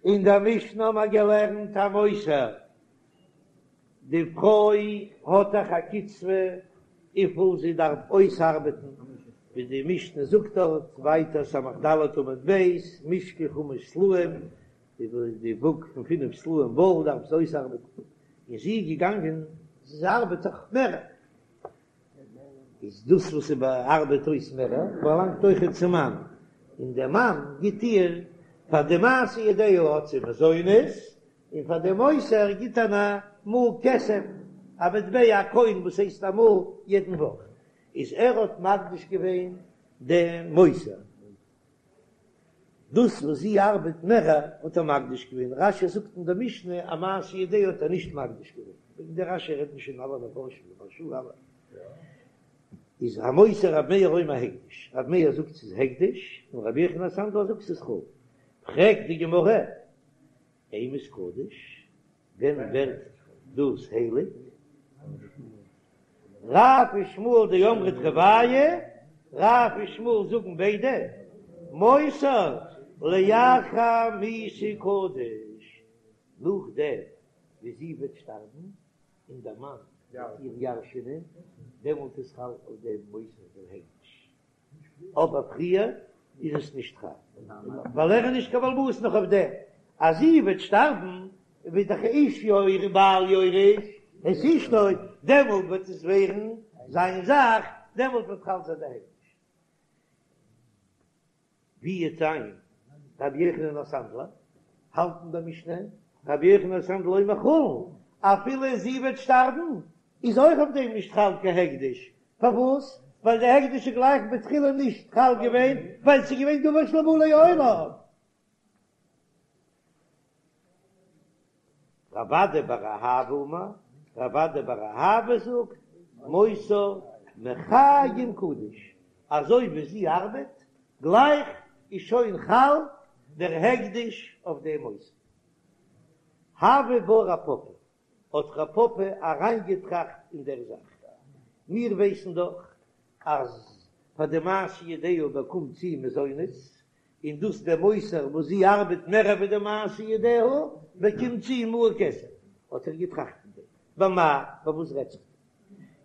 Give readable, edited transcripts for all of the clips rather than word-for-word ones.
אין דער משנה האבן מיר געלערנט המותר, די פרוי האט דאך א קצבה וויפיל זי דארף אויסארבעטן, ווי די משנה זאגט דארט ווייטער סמך ד' עמוד ב', משקל חמש סלעים, די וואג פון פינף סלעים וואל דארף זי אויסארבעטן, און זי איז געגאנגען זי ארבעט דאך מער. איז דאס וואס זי ארבעט אויס מער באלאנגט אויכעט צום מאן, און דער מאן גיט איר פאר די מעשה ידיה האט זי מזונות, און פאר די מותר גיט ער א מעה כסף, א מטבע א קוין וואס הייסט א מעה יעדן וואך, איז ער האט מקדיש געווען דעם מותר. דאס וואס זי ארבעט מער האט ער מקדיש געווען, רש"י זאגט אין די משנה אז מעשה ידיה האט ער נישט מקדיש געווען, וועגן די רש"י רעדן שוין אלע מפרשים די מהרש"א אלע, איז המותר רב מאיר אומר הקדש, רב מאיר זאגט ס'איז הקדש, און רבי יוחנן הסנדלר זאגט ס'איז חולין, פרעגט די גמרא, אימת קדוש, ווען ווערט דאס הייליג? רב ושמואל דאמרי תרוייהו, רב און שמואל זאגן ביידע, מותר לאחר מיתה קדוש, נאכדעם ווי זי וועט שטארבן און דער מאן וועט איר ירש'ענען, דעמאלט איז חל אויף דעם מותר דער הקדש. אבער פריער איז עס נישט חל, ווייל ער איז נישט קיין בעל הבית נאך אויף דעם אז זי וועט שטארבן, וועט דאך איש יורש בעל יורש את אשתו, דעמאלט וועט עס ווערן זיין זאך, דעמאלט וועט חל זיין די הקדש. ווי וועט זיין רבי יוחנן הסנדלר האלט אין דער משנה, רבי יוחנן הסנדלר אומר חולין, אפילו זי וועט שטארבן איז אויך אויף דעם נישט חל קיין הקדש, פארוואס? ווייל די הקדש איז גלייך בתחילה נישט חל געווען, ווייל ס'איז געווען דבר שלא בא לעולם. רב אדא בר אהבה אמר, רב אדא בר אהבה זאגט, מותר מחיים קדוש, אזוי ווי זי ארבעט, גלייך איז שוין חל דער הקדש אויף דעם מותר. הוה בה רב פפא, האט רב פפא אריינגעטראכט אין דער זאך. מיר ווייסן דאך אז פאר די מעשה ידיה באקומט זי מזונות, און דאס דער מותר וואס זי ארבעט מער ווי די מעשה ידיה באקומט זי מעה כסף. האט ער געטראכט אין דעם, במאי, ביי וואס רעדט זיך דא?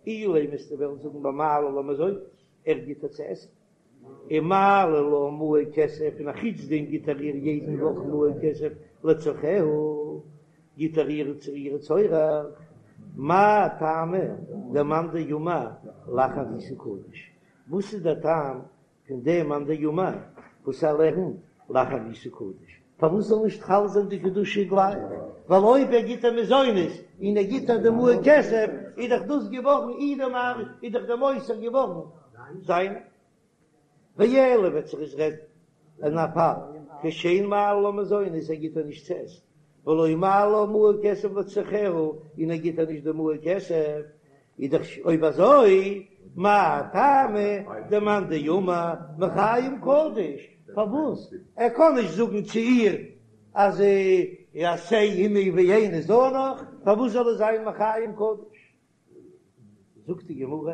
אילימא וועסטו וועלן זאגן במעלה לה מזונות, ער גיט איר צו עסן. ומעלה לה מעה כסף, און אחוץ דעם גיט ער איר יעדן וואך מעה כסף לצרכיה, גיט ער איר צו איר צורך, מאי טעמא דמאן דאמר לאחר מיתה קדוש, וואס איז דער טעם פון דעם מאן דאמר וואס ער לערנט לאחר מיתה קדוש, פארוואס זאל נישט חל זיין די קדושה גלייך, ווייל אויב ער גיט איר מזונות און ער גיט איר די מעה כסף, איז דאך דאס געווארן אי די מר איז דאך דער מותר געווארן זיין. ואלא וועט זיך עס רעדן אין א פאל כשאין מעלה לה מזונות ער גיט איר נישט צו עסן, ולא מעלה לה מעה כסף לצרכיה און ער גיט איר נישט די מעה כסף, איז דאך אויב אזוי מאי טעמא דמאן דאמר מחיים קדוש, פארוואס ער קען נישט זאגן צו איר אז עשה עמי ואיני זנך, פארוואס זאל עס זיין מחיים קדוש? זאגט די גמרא,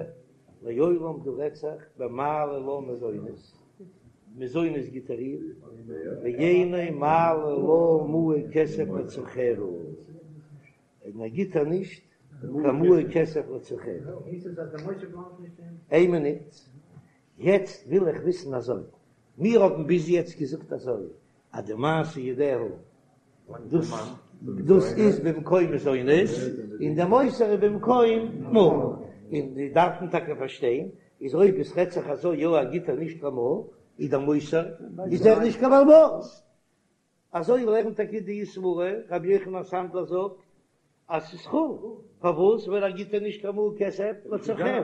לעולם דא רעדט זיך במעלה לה מזונות, מזונות גיט ער איר, ואינו מעלה לה מעה כסף לצרכיה, און ער גיט איר נישט קיין מעה כסף לצרכיה. איין מינוט, יעצט וויל איך וויסן אזוי, מיר האבן ביז יעצט געזאגט אזוי, אז די מעשה ידיה דאס דאס איז במקום מזונות, און די מותר איז במקום מעה, און די דארף מען טאקע פארשטיין, איז אויב עס רעדט זיך אזוי יא ער גיט איר נישט קיין מעה, איז דער מותר איז ער נישט קיין בעל הבית. אזוי לערנט טאקע די סברא, רבי יוחנן הסנדלר זאגט אז ס'איז חולין, פארוואס? ווייל ער גיט איר נישט קיין מעה כסף לצרכיה,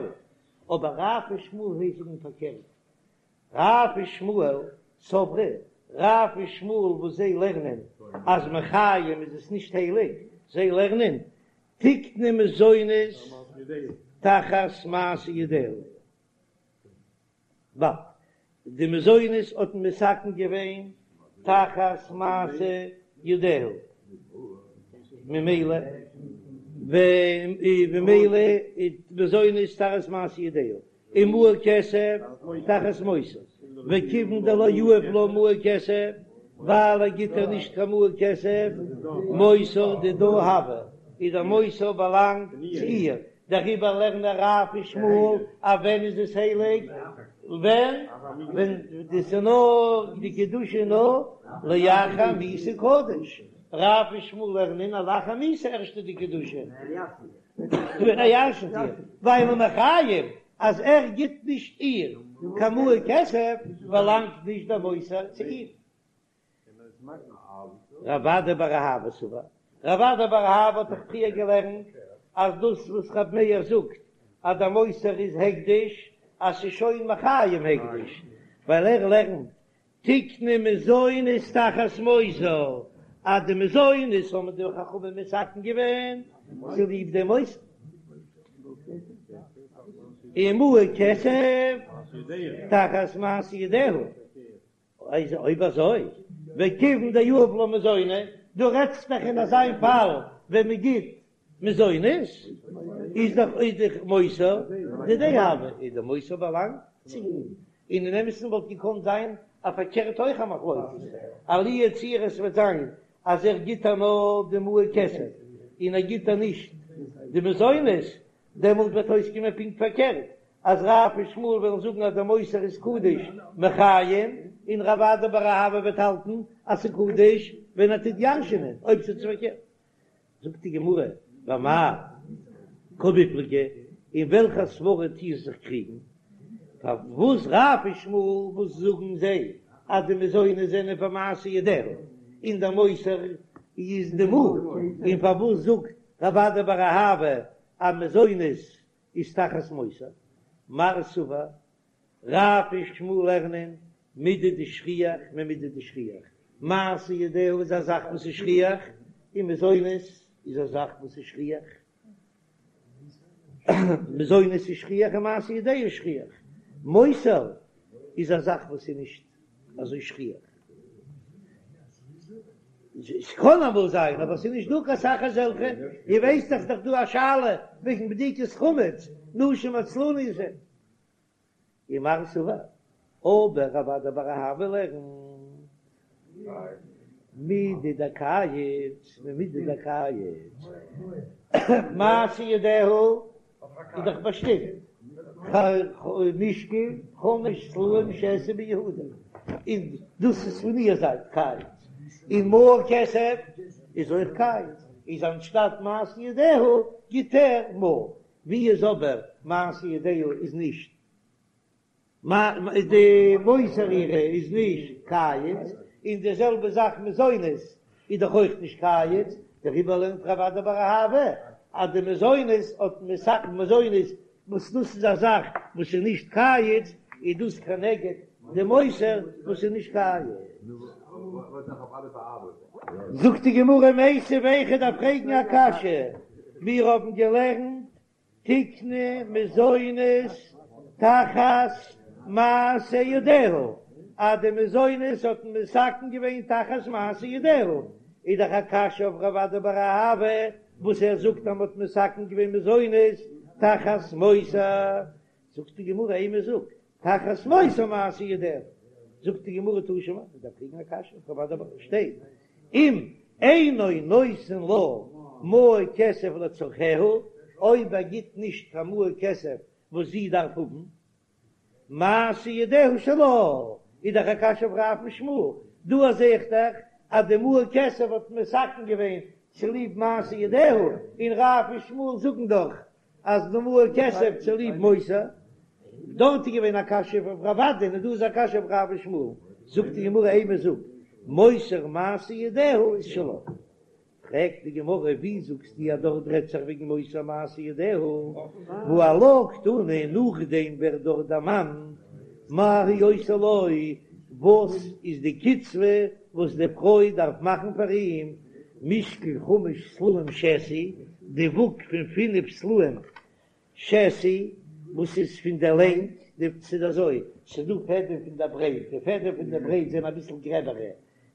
אבער רב ושמואל זיי זאגן פארקערט, רב ושמואל סברי, רב און שמואל וואס זיי לערנען אז מחיים איז עס נישט הייליג, זיי לערנען תקנו מזונות תחת מעשה ידיה. ב. די מזונות האט מען מתקן געווען תחת מעשה ידיה, ממילא וממילא איז מזונות תחת מעשה ידיה, און מעה כסף תחת מותר, וכיוון דלא יהיב לה מעה כסף. ווייל ער גיט איר נישט קיין מעה כסף, מותר דידה הוי, איז דער מותר באלאנגט צו איר, דעריבער לערנען רב און שמואל אז ווען איז עס הייליג? ווען ווען דאס איז נאר די קדושה נאר לאחר מיתה קדוש, רב און שמואל לערנען אז לאחר מיתה ערשט איז די קדושה, ווען ער ירשנט איר, ווייל מחיים אז ער גיט נישט איר קיין מעה כסף באלאנגט נישט דער מותר צו איר. רב אדא בר אהבה סבר, רב אדא בר אהבה האט דאך פריער געלערנט אז דאס וואס רב מאיר זאגט אז דער מותר איז הקדש, אז ס'איז שוין מחיים הקדש, ווייל ער לערנט תקנו מזונות תחת מותר, אז די מזונות האבן די חכמים מתקן געווען צוליב דעם מותר. און מעה כסף תחת מעשה ידיה. איז אויב אזוי, וכיוון דיהיב לה מזוני, דו רעדסט דאך אין אזא פאל ווען מען גיט מזונות, איז דאך איז דאך מותר דידיה הוי, איז די מותר באלאנגט צו אים, און אין אמת'ן וואלט געקאנט זיין א פארקערט אויך א מחלוקת, אז לו יצוייר עס וועט זיין אז ער גיט איר נאר די מעה כסף און ער גיט איר נישט די מזונות, דעמאלט וועט אויסקומען פונקט פארקערט, אז רב און שמואל וועלן זאגן אז דער מותר איז קדוש מחיים, און רב אדא בר אהבה וועט האלטן אז ס'איז קדוש ווען ער טוט ירש'ענען, אויב ס'איז פארקערט. זאגט די גמרא, במאי קמיפלגי, אין וועלכע סברא טוען זיך קריגן? פארוואס רב און שמואל וואס זאגן זיי אז די מזונות זענען פאר מעשה ידיה און דער מותר איז די מעה, און פארוואס זאגט רב אדא בר אהבה אז מזונות איז תחת מותר? מר סבר, רב און שמואל לערנען מידי דשכיח ממידי דשכיח, מעשה ידיה איז א זאך וואס איז שכיח, און מזונות איז א זאך וואס איז שכיח, מזונות איז שכיח און מעשה ידיה איז שכיח, מותר איז א זאך וואס איז נישט אזוי שכיח, ס'קען אמאל זיין אבער ס'איז נישט דא קיין סאך אזעלכע, איר ווייסט דאך ס'דאך דא א שאלה וועגן בדיקת חמץ, נשים עצלניות הן. ומר סבר, אבער רב אדא בר אהבה לערנט מידי דקייץ ממידי דקייץ, מעשה ידיה איז דאך באשטימט, משקל חמש סלעים שתי ביהודה, און דאס איז פון איר זייט קיץ, און מעה כסף איז אויך קיץ, איז אנשטאט מעשה ידיה גיט ער מעה, ווי איז אבער מעשה ידיה איז נישט די מותר אירע איז נישט קיץ, און די זעלבע זאך מזונות איז דאך אויך נישט קיץ, דעריבער לערנט רב אדא בר אהבה אז די מזונות האט מתקן מזונות וואס דאס איז א זאך וואס איז נישט קיץ, איז דאס כנגד די מותר וואס איז נישט קיץ. זאגט די גמרא מיתיבי איך דארף פרעגן א קשיא, מיר האבן געלערנט תקנו מזונות תחת מעשה ידיה, אז די מזונות האט מען מתקן געווען תחת מעשה ידיה, איז דאך א קשיא אויף רב אדא בר אהבה וואס ער זאגט אז מען האט מתקן געווען מזונות תחת מותר, זאגט די גמרא אימא זאג תחת מותר מעשה ידיה, זאגט די גמרא תא שמע, מען דארף פרעגן א קשיא, רב אדא שטייט אם אינו נותן לה מעה כסף לצרכיה, אויב ער גיט נישט קיין מעה כסף וואס זי דארף האבן, מעשה ידיה שלה, איז דאך א קשיא אויף רב און שמואל, דא זע איך דאך אז די מעה כסף האט מען מתקן געווען צוליב מעשה ידיה, און רב און שמואל זאגן דאך אז די מעה כסף צוליב מותר, דארט איז געווען א קשיא אויף רב אדא און דא איז א קשיא אויף רב און שמואל, זאגט די גמרא אימא זאג מותר מעשה ידיה איז שלה, פרעגט די גמרא ווי זאגסטו אז דארט רעדט זיך וועגן מותר מעשה ידיה, והא עלה קתני נאכדעם ווערט דארט דערמאנט מה היא עושה לו, וואס איז די קצבה וואס די פרוי דארף מאכן פאר אים, משקל חמש סלעים שתי, די וואג פון פינף סלעים שתי, וואס איז פון דער לענג, די ס'איז אזוי, ס'איז דא פעדעם פון דער ברייט, די פעדעם פון דער ברייט זענען אביסל גרעבערע,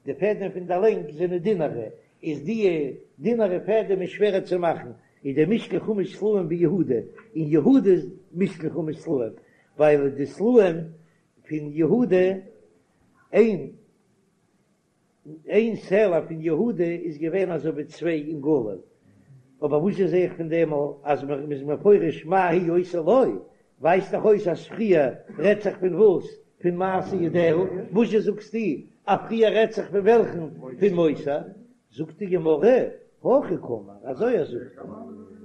די פעדעם פון דער לענג זענען דינערע, איז די דינערע פעדעם איז שווערער צו מאכן, איז די משקל חמש סלעים ביהודה, אין יהודה איז משקל חמש סלעים, ווייל די סלעים פון יהודה, איין. איין סלע פון יהודה איז געווען אזוי ווי צוויי אין גליל, אבער וואס זע איך פון דעם אז מען איז מפרש מה היא עושה לו, ווייזט דאך אויס אז פריער רעדט זיך פון וואס? פון מעשה ידיה, וואזשע זאגסטו אז פריער רעדט זיך פון וועלכן? פון מותר? זאגט די גמרא, הכי קאמר, אזוי ער זאגט,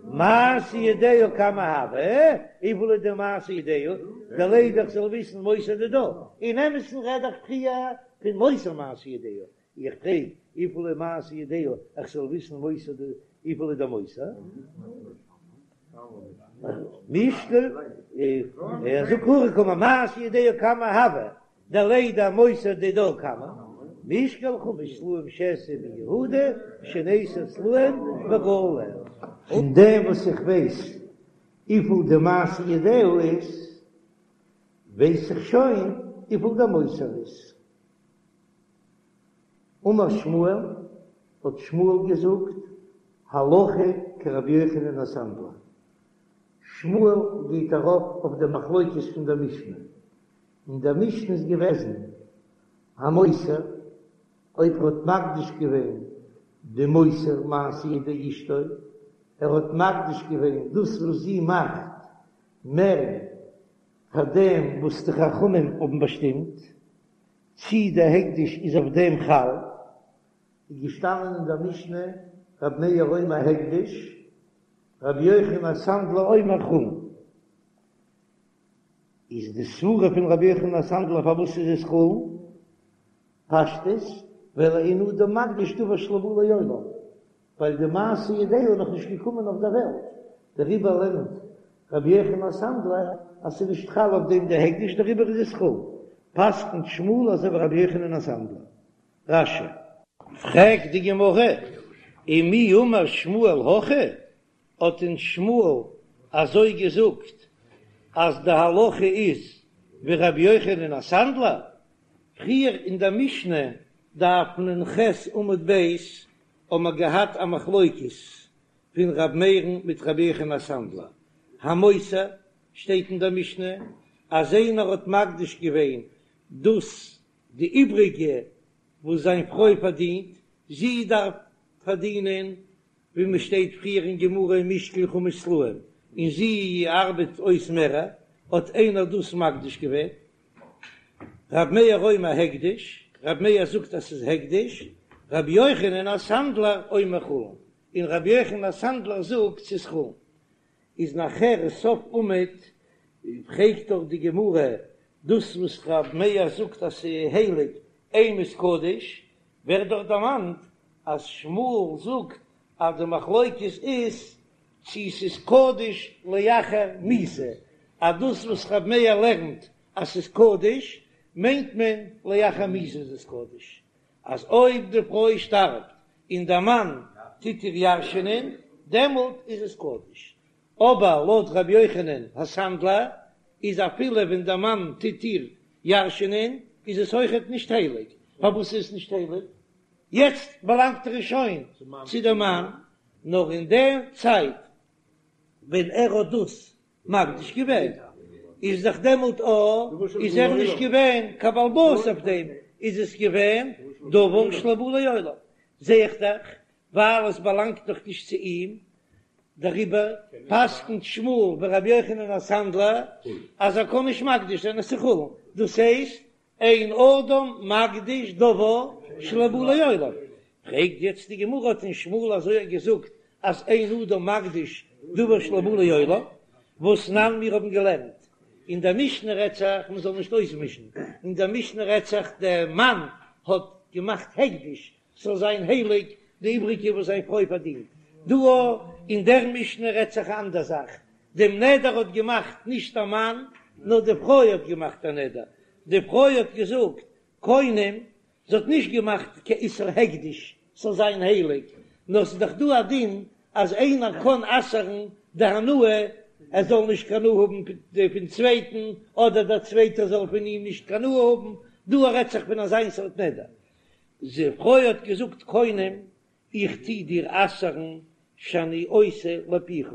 מעשה ידיה כמה הוי, וויפיל איז די מעשה ידיה, דלידע איך זאל וויסן מותר דידה, אין אמת'ן רעד איך פריער פון מותר מעשה ידיה, איך פרעג וויפיל איז מעשה ידיה איך זאל וויסן מותר די וויפיל איז די מותר? מישקל ער זאגט הכי קאמר מעשה ידיה כמה הוי דלידע מותר דידה כמה משקל חמש סלעים שאעשה ביהודה שני עשר סלעים בגליל. פון דעם וואס איך ווייס וויפיל די מעשה ידיה איז, ווייס איך שוין וויפיל די מותר איז. אמר שמואל, האט שמואל געזאגט, הלכה כרבי יוחנן הסנדלר. שמואל גייט ארויף אויף די מחלוקת פון דער משנה. אין דער משנה איז געוועזן, המותר, אויב ער האט מקדיש געווען די מותר מעשה ידי אשתו, ער האט מקדיש געווען דאס וואס זי מאכט מער פאר דעם וואס די חכמים האבן באשטימט, צי דער הקדש איז אויף דעם חל, איז געשטאנען אין דער משנה רבי מאיר אומר הקדש, רבי יוחנן הסנדלר אומר חולין. איז די סברה פון רבי יוחנן הסנדלר פארוואס איז עס חולין? פשטות, ווייל אין אדם מקדיש דבר שלא בא לעולם, ווייל די מעשה ידיה איז נאך נישט געקומען אויף דער וועלט, דעריבער לערנט רבי יוחנן הסנדלר אז ס'איז נישט חל אויף דעם די הקדש דעריבער איז עס חולין, פסק'נט שמואל אזוי ווי רבי יוחנן הסנדלר. רש"י. פרעגט די גמרא, ומי אמר שמואל הכי, האט דען שמואל אזוי געזאגט אז די הלכה איז ווי רבי יוחנן הסנדלר? פריער אין דער משנה, דף נ"ח עמוד ב', האבן מיר געהאט א מחלוקת פון ר' מאיר'ן מיט רבי יוחנן הסנדלר, המותר, שטייט אין דער משנה אז איינער האט מקדיש געווען דאס די איבריגע וואס זיין פרוי פארדינט, זי דארף פארדינען ווי מען שטייט פריער אין גמרא אין משקל חמש סלעים, און זי ארבעט אויס מער, האט איינער דאס מקדיש געווען? ר' מאיר אומר הקדש, ר' מאיר זאגט אז ס'איז הקדש, ר' יוחנן הסנדלר אומר חולין, און ר' יוחנן הסנדלר זאגט ס'איז חולין. איז נאכער סוף עמוד פרעגט דאך די גמרא דאס וואס ר' מאיר זאגט אז ס'איז הייליג אימת קדש, ווערט דאך דערמאנט אז שמואל זאגט אז די מחלוקת איז צו ס'איז קדוש לאחר מיתה, אז דאס וואס ר' מאיר לערנט אז ס'איז קדוש מיינט מען לאחר מיתה איז עס קדוש, אז אויב די פרוי שטארבט און דער מאן טוט איר ירש'ענען דעמאלט איז עס קדוש, אבער לויט ר' יוחנן הסנדלר איז אפילו ווען דער מאן טוט איר ירש'ענען איז עס אויכעט נישט הייליג, פארוואס איז עס נישט הייליג? יעצט באלאנגט ער שוין צו דעם מאן, נאר אין דער צייט ווען ער האט דאס מקדיש געווען איז דאך דעמאלט א איז ער נישט געווען קיין בעל הבית אויף דעם, איז עס געווען דבר שלא בא לעולם, זע איך דאך ווייל עס באלאנגט דאך נישט צו אים, דעריבער פסק'נט שמואל ווי רבי יוחנן הסנדלר אז ער קען נישט מקדיש זיין עס איז חולין, דאס הייסט אין אדם מקדיש דבר שלא בא לעולם. פרעגט יעצט די גמרא האט דען שמואל אזוי געזאגט אז אין אדם מקדיש דבר שלא בא לעולם, והתנן מיר האבן געלערנט אין דער משנה רעדט זיך מען זאל נישט אויסמישן, אין דער משנה רעדט זיך דער מאן האט געמאכט הקדש ס'זאל זיין הייליג די איבריגע וואס זיין פרוי פארדינט. דא אין דער משנה רעדט זיך א אנדער זאך, דעם נדר האט געמאכט נישט א מאן, נאר די פרוי האט געמאכט א נדר, די פרוי האט געזאגט קונם, זי האט נישט געמאכט קיין איסור הקדש ס'זאל זיין הייליג, נאר ס'איז דאך דא א דין אז איינער קען אסר'ן די הנאה, ער זאל נישט קיין הנאה האבן פון צווייטן, אדער דער צווייטער זאל פון אים נישט קיין הנאה האבן, דא רעדט זיך פון אזיין סארט נדר, די פרוי האט געזאגט קונם, איך טו דיר אסר'ן שאני עושה לפיך,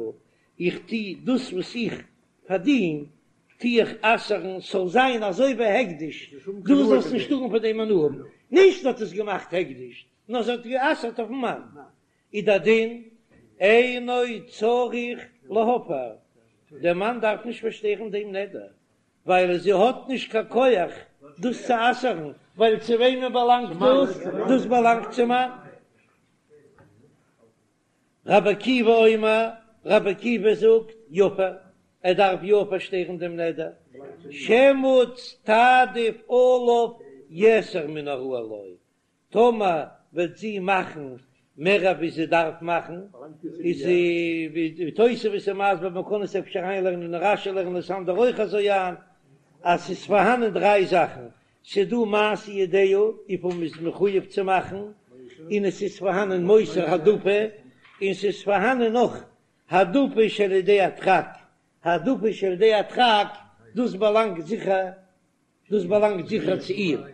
איך טו דאס וואס איך פארדין טו איך אסר'ן ס'זאל זיין אזוי ווי הקדש, דו זאלסט נישט טארן פון דעם הנאה האבן. נישט זי האט עס געמאכט הקדש, נאר זי האט גע'אסר'ט אויפן מאן, איז דער דין אינו צריך להפר, דער מאן דארף נישט פארשטערן דעם נדר, ווייל זי האט נישט קיין כח דאס צו אסר'ן, ווייל צו וועמען באלאנגט דאס? דאס באלאנגט צום מאן. רבי עקיבא אומר, רבי עקיבא זאגט, יפר, ער דארף יא פארשטערן דעם נדר, שמא תעדיף עליו יתר מן הראוי לו, טאמער וועט זי מאכן מער ווי זי דארף מאכן, איז ווי תוספות איז מסביר, מען קען עס אפשר אריינלערנען אין רש"י לערנען עס אנדערע אויך אזוי איין, אז ס'איז פארהאנען דריי זאכן, ס'איז דא מעשה ידיה וויפיל מ'איז מחויב צו מאכן, און עס איז פארהאנען מותר העדפה, און ס'איז פארהאנען נאך העדפה שעל ידי הדחק, העדפה שעל ידי הדחק, דאס באלאנגט זיכער דאס באלאנגט זיכער צו איר,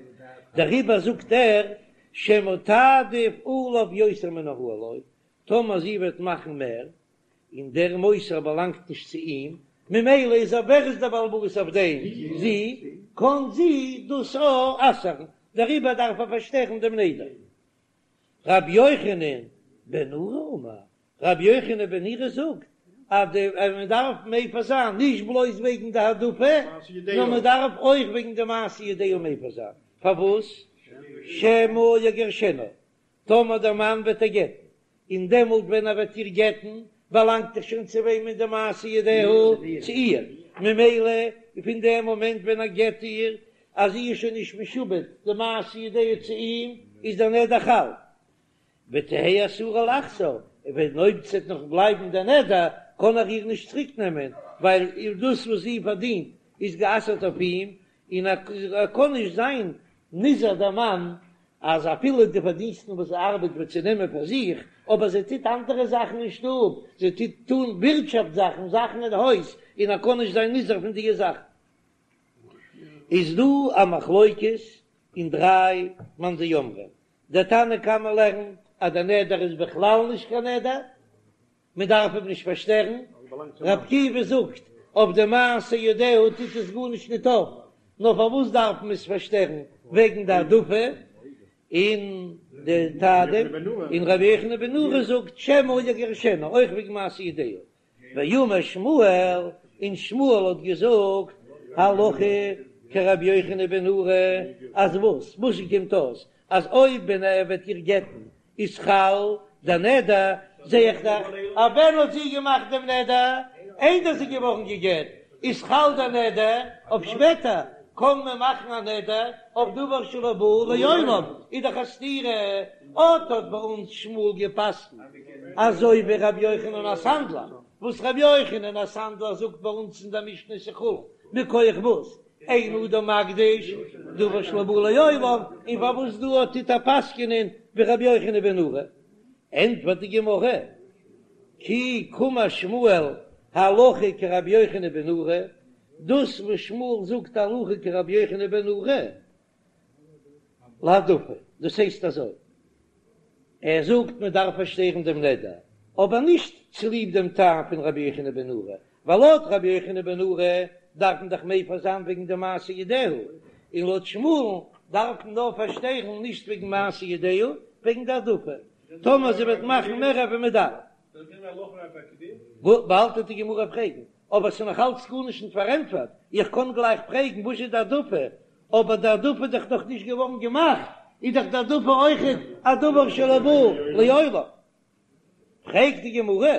דעריבער זאגט ער שמא תעדיף עליו יותר מן הראוי לו, טאמער זי וועט מאכן מער, און דער מותר באלאנגט נישט צו אים, ממילא איז ער ווער איז דער בעל הבית אויף דעם? זי, קען זי דאס אויך אסר'ן, דעריבער דארף ער פארשטערן דעם נדר. רבי יוחנן בן נורי אמר, רבי יוחנן בן נורי זאגט אז די אז מען דארף מפר זיין נישט בלויז וועגן די העדפה, נאר מען דארף אויך וועגן די מעשה ידיה מפר זיין, פארוואס? שמא יגרשנה, טאמער דער מאן וועט איר גט'ן, און דעמאלט ווען ער וועט איר גט'ן, באלאנגט דאך שוין צו וועמען די מעשה ידיה? צו איר, ממילא פון דעם מאמענט ווען ער גט איר, אז זי איז שוין נישט משועבד די מעשה ידיה צו אים, איז דער נדר חל. ותהא אסורה לחזור, און אויב ס'וועט נאך בלייבן דער נדר, קען ער איר נישט צוריק נעמען, ווייל דאס וואס זי פארדינט איז גע'אסר'ט אויף אים, און ער קען נישט זיין נזהר דער מאן אז אפילו די פארדינסטן וואס זי ארבעט וועט זי נעמען פאר זיך, אבער זי טוט אנדערע זאכן אין שטוב, זי טוט טון ווירטשאפט זאכן, זאכן אין הויז, און ער קען נישט זיין נזהר פון דיע זאכן. איז דא א מחלוקת אין דריי מאן דאמרים, דער תנא קמא לערנט אז דער נדר איז בכלל נישט קיין נדר, מען דארף אים נישט פארשטערן, ר' עקיבא זאגט אויף די מעשה ידיה טוט עס גארנישט ניט אויף, נאר פארוואס דארף מען עס פארשטערן וועגן די העדפה און די תעדיף, און רבי יוחנן בן נורי זאגט שמא יגרשנה אויך וועגן מעשה ידיה, ואמר שמואל, און שמואל האט געזאגט, הלכה כרבי יוחנן בן נורי, אז וואס? וואס קומט אויס? אז אויב ווען ער וועט איר גט'ן איז חל דער נדר, זע איך דאך אז ווען האט זי געמאכט דעם נדר? איידער זי איז געווארן גע'גט, איז חל דער נדר, אויף שפעטער קען מען מאכן א נדר אויף דבר שלא בא לעולם, איז דאך א סתירה, אט האט ביי אונז שמואל גע'פסק'נט אזוי ווי ר' יוחנן הסנדלר, וואס ר' יוחנן הסנדלר זאגט ביי אונז אין דער משנה ס'איז חולין, מכח וואס? אין אדם מקדיש דבר שלא בא לעולם, און פארוואס דא האט טוט ער פסק'נען ווי ר' יוחנן בן נורי? ענטפערט די גמרא, כי קאמר שמואל הלכה כרבי יוחנן בן נורי, דאס וואס שמואל זאגט הלכה כרבי יוחנן בן נורי, להעדפה, דאס הייסט אזוי, ער זאגט מען דארף פארשטערן דעם נדר, אבער נישט צוליב דעם טעם פון רבי יוחנן בן נורי, ווייל לויט רבי יוחנן בן נורי דארף מען דאך מפר זיין וועגן די מעשה ידיה, און לויט שמואל'ן דארף מען נאר פארשטערן נישט וועגן מעשה ידיה, וועגן די העדפה, טאמער זי וועט מאכן מער ווי מען דארף. באלד וועט די גמרא פרעגן, אבער ס'איז נאך אלץ גארנישט נישט פארענטפערט, איך קען גלייך פרעגן וואס איז די העדפה, אבער די העדפה איז דאך נאך נישט געווארן געמאכט, איז דאך די העדפה אויכעט א דבר שלא בא לעולם. פרעגט די גמרא,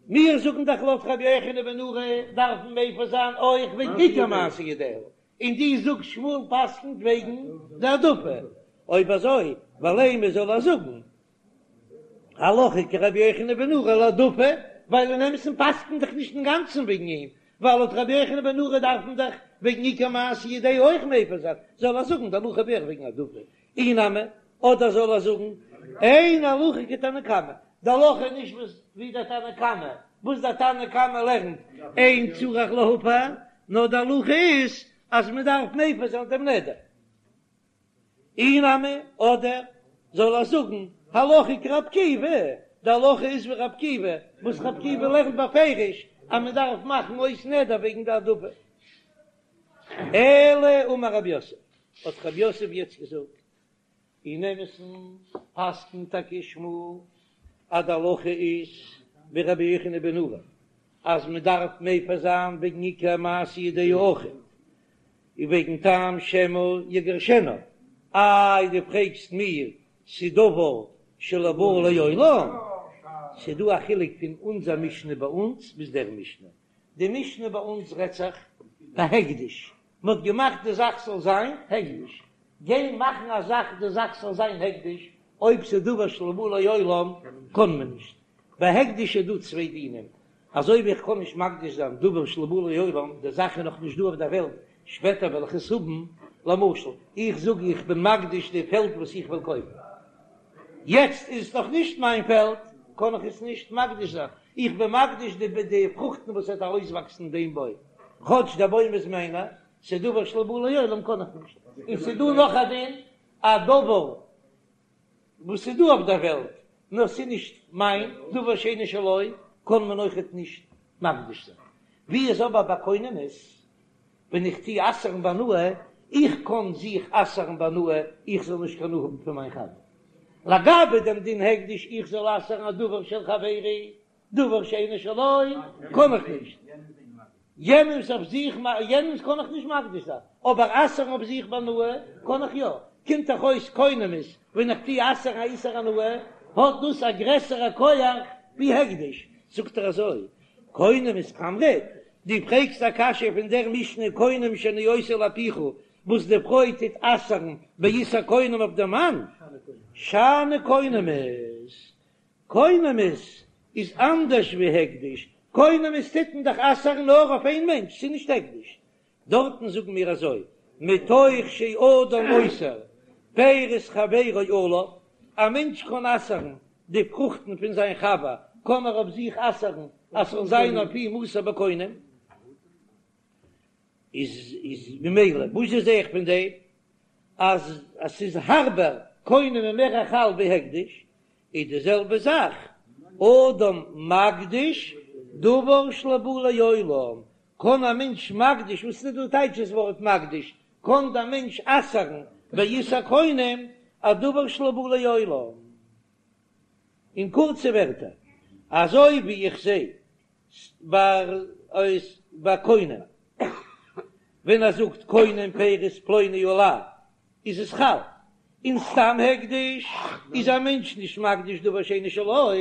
מיר זאגן דאך לויט רבי יוחנן בן נורי דארף מען מפר זיין אויך וועגן עיקר מעשה ידיה, און דו זאגסט שמואל פסק'נט וועגן די העדפה, אויב אזוי ולימא זאל ער זאגן הלכה כרבי יוחנן בן נורי להעדפה, ווייל אין אמת'ן פסק'נט דאך נישט אינגאנצן וועגן אים, ווייל לויט רבי יוחנן בן נורי דארף מען דאך וועגן עיקר מעשה ידיה אויך מפר זיין, זאל ער זאגן די הלכה אויך וועגן העדפה, אי נמי, אדער זאל ער זאגן אין הלכה כתנא קמא, די הלכה איז נישט וואס ווי דער תנא קמא, וואס דער תנא קמא לערנט אין צריך להפר, נאר די הלכה איז אז מען דארף מפר זיין דעם נדר. אי נמי, אדער זאל ער זאגן הלכה כרבי עקיבא, די הלכה איז ווי רבי עקיבא, וואס רבי עקיבא לערנט בפירוש אז מען דארף מאכן אויס נדר וועגן די העדפה. אלא אמר רב יוסף, האט רב יוסף יעצט געזאגט. אין אמת'ן פסק'נט טאקע שמואל אז די הלכה איז ווי רבי יוחנן בן נורי אז מען דארף מפר זיין וועגן עיקר מעשה ידיה אויכעט און וועגן טעם שמא יגרשנה. איי דו פרעגסט מיר ס'דבר שלא בא לעולם? ס'דא א חילוק פון אונזער משנה ביי אונז ביז דער משנה. די משנה ביי אונז רעדט זיך בהקדש, מען האט געמאכט די זאך זאל זיין הקדש, גיין מאכן א זאך די זאך זאל זיין הקדש, אויב ס'איז דבר שלא בא לעולם קען מען נישט. ביי הקדש איז דא צוויי דינים, אזוי ווי איך קען נישט מקדיש זיין דבר שלא בא לעולם, די זאך איז נאך נישט דא אויף דער וועלט, שפעטער וועל איך עס האבן, למשל, איך זאג איך בין מקדיש די פעלד וואס איך וויל קויפן, יעצט איז עס נאך נישט מיין פעלד, קען איך עס נישט מקדיש זיין, איך בין מקדיש די די פרוכטן וואס וועט ארויסוואקסן דעם בוים, כאטש דער בוים איז מיינער, ס'איז דבר שלא בא לעולם קען איך נישט, און ס'איז דא נאך א דין, א דבר וואס איז דא אויף דער וועלט, נאר ס'איז נישט מיין, דבר שאינו שלו, קען מען אויכעט נישט מקדיש זיין. ווי איז אבער ביי קונמות, ווען איך טו אסר'ן בהנאה, איך קען זיך אסר'ן בהנאה, איך זאל נישט קיין הנאה האבן פון מיין חבר. לגבי דעם דין הקדש, איך זאל אסר'ן א דבר של חברי, דבר שאינו שלו, קען איך נישט. יענעמס אויף זיך, יענעמס קען איך נישט מקדיש זיין, אבער אסר'ן אויף זיך בהנאה קען איך יא. קומט דאך אויס קונמות, ווען איך טו אסר'ן א איסור הנאה, האט דאס א גרעסערע כח ווי הקדש. זאגט ער אזוי, קונמות קאמרת, דו פרעגסט א קשיא פון דער משנה קונם שאני עושה לאפיך, וואס די פרוי טוט אסר'ן באיסור קונם אויף דעם מאן, שאני קונמות, קונמות איז אנדערש ווי הקדש, קונמות טוט מען דאך אסר'ן נאר אויף איין מענטש, ס'איז נישט הקדש. דארטן זאגן מיר אזוי, מתוך שאדם אוסר פירות חברו עליו, א מענטש קען אסר'ן די פרוכטן פון זיין חבר, קען ער אויף זיך אסר'ן אז ס'זאל זיין אויף אים אסור בקונם, איז איז ממילא וואס זע איך פון דעם אז אז ס'איז הארבער קונם איז מער חל ווי הקדש, איז די זעלבע זאך אדם מקדיש דבר שלא בא לעולם, קען א מענטש מקדיש, וואס איז דא טייטש דאס ווארט מקדיש, קען דער מענטש אסר'ן באיסור קונם א דבר שלא בא לעולם. אין קורצע ווערטער, אזוי ווי איך זע ביי קונם, ווען ער זאגט קונם פירות פלוני עלי איז עס חל, און סתם הקדש איז א מענטש נישט מקדיש דבר שאינו שלו,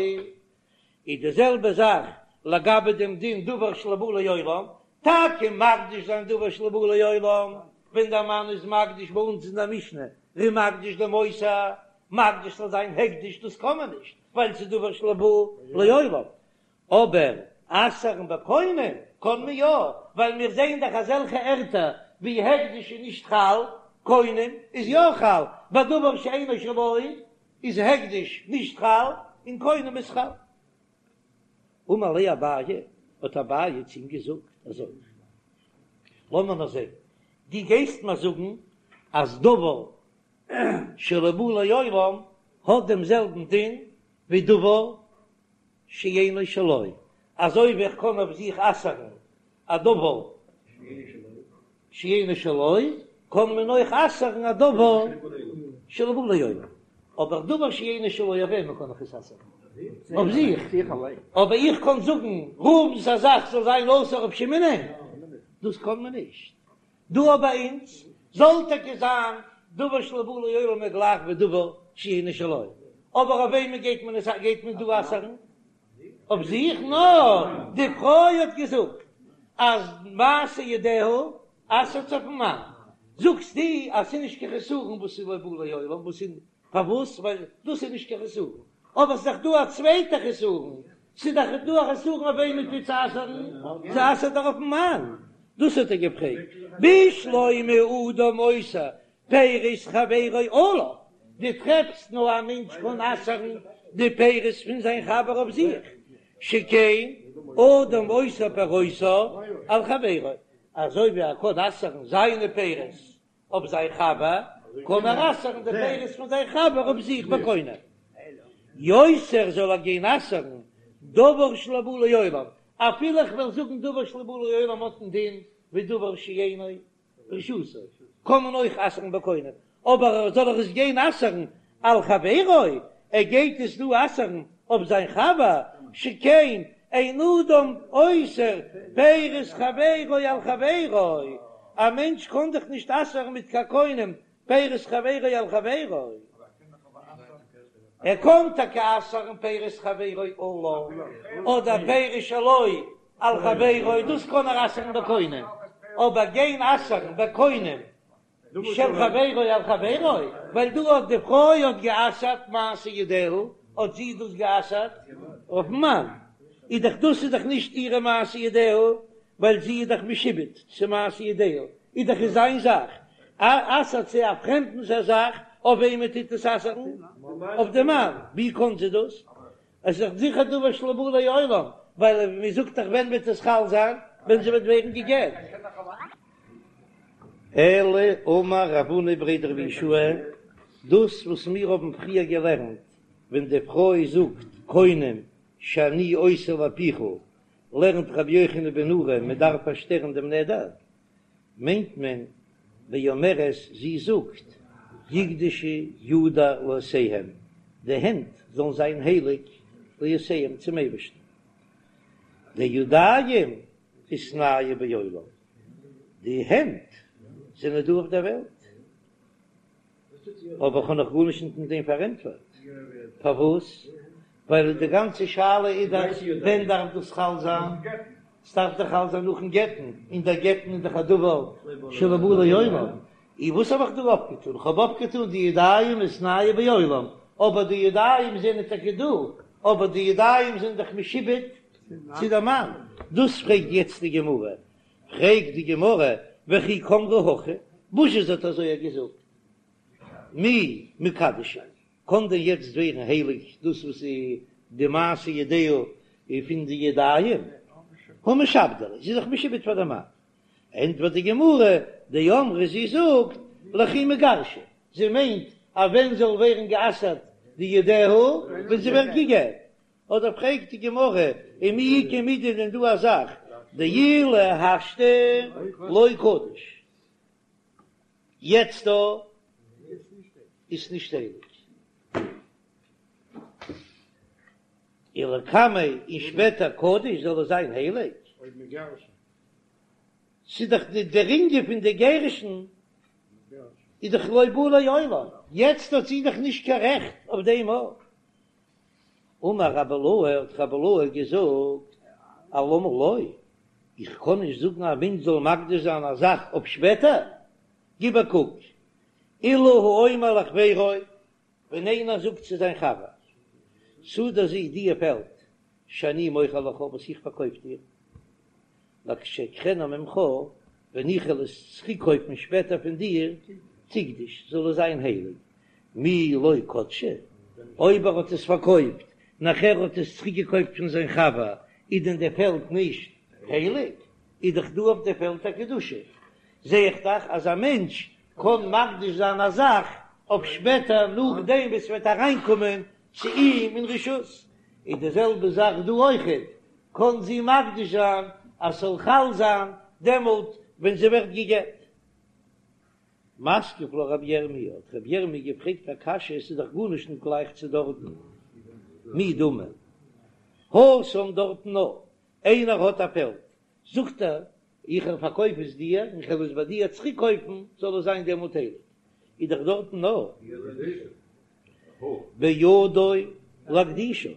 איז די זעלבע זאך לגבי דעם דין דבר שלא בא לעולם, טאקע מקדיש זיין דבר שלא בא לעולם, ווען דער מאן איז מקדיש ביי אונז אין דער משנה ער איז מקדיש דעם מותר, מקדיש זאל זיין הקדש דאס קען מען נישט ווייל ס'איז דבר שלא בא לעולם, אבער אסר'ן בקונם קען מען יא, ווייל מיר זעען דאך אזעלכע ערטער ווי הקדש איז נישט חל, קונם איז יא חל, ביי דבר שאינו שלו איז הקדש נישט חל און קונם איז חל. אמר ליה אביי, האט אביי צו אים געזאגט אזוי, לאמיר נאר זען, דו גייסט מיר זאגן אז דבר שלא בא לעולם האט דעם זעלבן דין ווי דבר שאינו שלו, אזוי ווי איך קען אויף זיך אסר'ן א דבר שאינו שלו, קען מען אויך אסר'ן א דבר שלא בא לעולם. אבער דבר שאינו שלו אויף וועמען קען איך עס אסר'ן? אויף זיך. אבער איך קען זאגן ראובן'ס א זאך זאל זיין אסור אויף שמעונ'ען? דאס קען מען נישט. דא ביי אונז זאל טאקע זיין דבר שלא בא לעולם איז גלייך ווי דבר שאינו שלו, אבער אויף וועמען גייט מען עס גייט מען דא אסר'ן? אויף זיך? נאר די פרוי האט געזאגט אז מעשה ידיה אסר'ט זי אויפן מאן, זאגסטו אז ס'איז נישט קיין חסרון וואס איז לא בא לעולם, וואס איז פארוואס? ווייל דאס איז נישט קיין חסרון, אבער ס'איז דאך דא א צווייטע חסרון, ס'איז דאך דא א חסרון אויף וועמען טוט זי אסר'ן, זי אסר'ט דאך אויפן מאן, דאס האט ער געפרעגט, בשלמא אדם אוסר פירות חברו עליו, דו טרעפסט נאר א מענטש קען אסר'ן די פירות פון זיין חבר אויף זיך, שכן אדם אוסר פירותיו על חברו, אזוי ווי ער קען אסר'ן זיינע פירות אויף זיין חבר, קען ער אסר'ן די פירות פון זיין חבר אויף זיך בקונם. יותר זאל ער גיין אסר'ן דבר שלא בא לעולם, אפילו איך וועל זאגן דבר שלא בא לעולם האט א דין ווי דבר שאינו ברשותו, קען מען אויך אסר'ן בקונם. אבער זאל ער עס גיין אסר'ן על חברו, ער גייט עס דא אסר'ן אויף זיין חבר, שכן אין אדם אוסר פירות חברו על חברו, א מענטש קען דאך נישט אסר'ן מיט קיין קונם פירות חברו על חברו. ער קען טאקע אסר'ן פירות חברו עליו, אדער פירות שלו על חברו, דאס קען ער אסר'ן בקונם, אבער גיין אסר'ן בקונם של חברו על חברו, ווייל דא האט די פרוי האט גע'אסר'ט מעשה ידיה, האט זי דאס גע'אסר'ט אויפ'ן מאן, איז דאך דאס איז דאך נישט אירע מעשה ידיה, ווייל זי איז דאך משועבד צו מעשה ידיה, איז דאך עס זיין זאך, אסר'ט זי א פרעמדנס א זאך, אויף וועמען טוט עס אסר'ן? אויף די מאן, ווי קאן זי דאס? עס איז דאך זיכער דבר שלא בא לעולם, ווייל מען זאגט דאך ווען וועט עס חל זיין? ווען זי וועט ווערן גע'גט. אלא אמר רב הונא בריה דרב יהושע, דאס וואס מיר האבן פריער געלערנט, ווען די פרוי זאגט קונם שאני עושה לפיך, לערנט רבי יוחנן בן נורי מען דארף פארשטערן דעם נדר, מיינט מען באומרת זי זאגט יקדשו ידי לעושיהם, די הענט זאלן זיין הייליג לעושיהם צום אייבערשטן, דידיים איתנהו בעולם, די הענט זענען דא אויף דער וועלט. אבער כ'האב נאך גארנישט נישט מיט דעם פארענטפערט. פארוואס? ווייל די גאנצע שאלה איז דאך ווען דארף דאס חל זיין? ס'דארף דאך חל זיין נאכן גט'ן, און דער גט'ן איז דאך א דבר שלא בא לעולם. און וואס האב איך דא אויפגעטון? כ'האב אויפגעטון די ידיים איתנהו בעולם, אבער די ידיים זענען טאקע דא, אבער די ידיים זענען דאך משועבד צו דער מאן. דאס פרעגט יעצט די גמרא. פרעגט די גמרא, וכי קאמרה הכי, וואס זי האט אזוי געזאגט, מי מקדשא, קען דען יעצט ווערן הייליג דאס וואס איז די מעשה ידיה פון די ידיים, הא משעבדא ליה, זי איז דאך משועבד פאר די מאן, ענטפערט די גמרא, דאמרה זי זאגט, לכי מיגרשא, זי מיינט אז ווען זאל ווערן גע'אסר'ט די ידיה, ווען זי ווערט גע'גט, אדער פרעגט די גמרא, ומי איכא מידי דען דא א זאך דאילו השתא לא קדיש, יעצט דא איז נישט הייליג, ולקמיה און שפעטער קדיש זאל עס זיין הייליג, ס'איז דאך די דער ענין פון די גירושין איז דאך לא בא לעולם, יעצט האט זי דאך נישט קיין רעכט אויף דעם אויך. אמר רבי אילעא, האט רבי אילעא געזאגט, אלמה לא, איך קען נישט זאגן א מענטש זאל מקדיש זיין א זאך אויף שפעטער, גיב א קוק, אילו האומר לחבירו, ווען איינער זאגט צו זיין חבר, שדה זו די פעלד, שאני מוכר לך וואס איך פארקויף דיר, לכשאקחנה ממך, ווען איך וועל עס צוריקקויפן שפעטער פון דיר, תקדש, זאל עס זיין הייליג, מי לא קדשה, אויב ער האט עס פארקויפט, נאכער האט עס צוריקגעקויפט פון זיין חבר, איז דען די פעלד נישט הייליג? איז דאך דא אויף די פעלד א קדושה. זע איך דאך אז א מענטש קען מקדיש זיין א זאך אויף שפעטער נאכדעם וואס ס'וועט אריינקומען צו אים אין רשות. איז די זעלבע זאך דא אויכעט, קען זי מקדיש זיין אז ס'זאל חל זיין דעמאלט ווען זי ווערט גע'גט. מתקיף לה רבי ירמי', האט רבי ירמי' געפרעגט א קשיא, עס איז דאך גארנישט נישט גלייך צו דארטן, מי דמי התם דארטן נאר איינער האט א פעלד, זאגט ער איך פארקויף עס דיר און כ'וועל עס ביי דיר צוריק קויפן, זאל עס זיין דעמאלט הייליג, איז דאך דארטן נאר בידו להקדישה,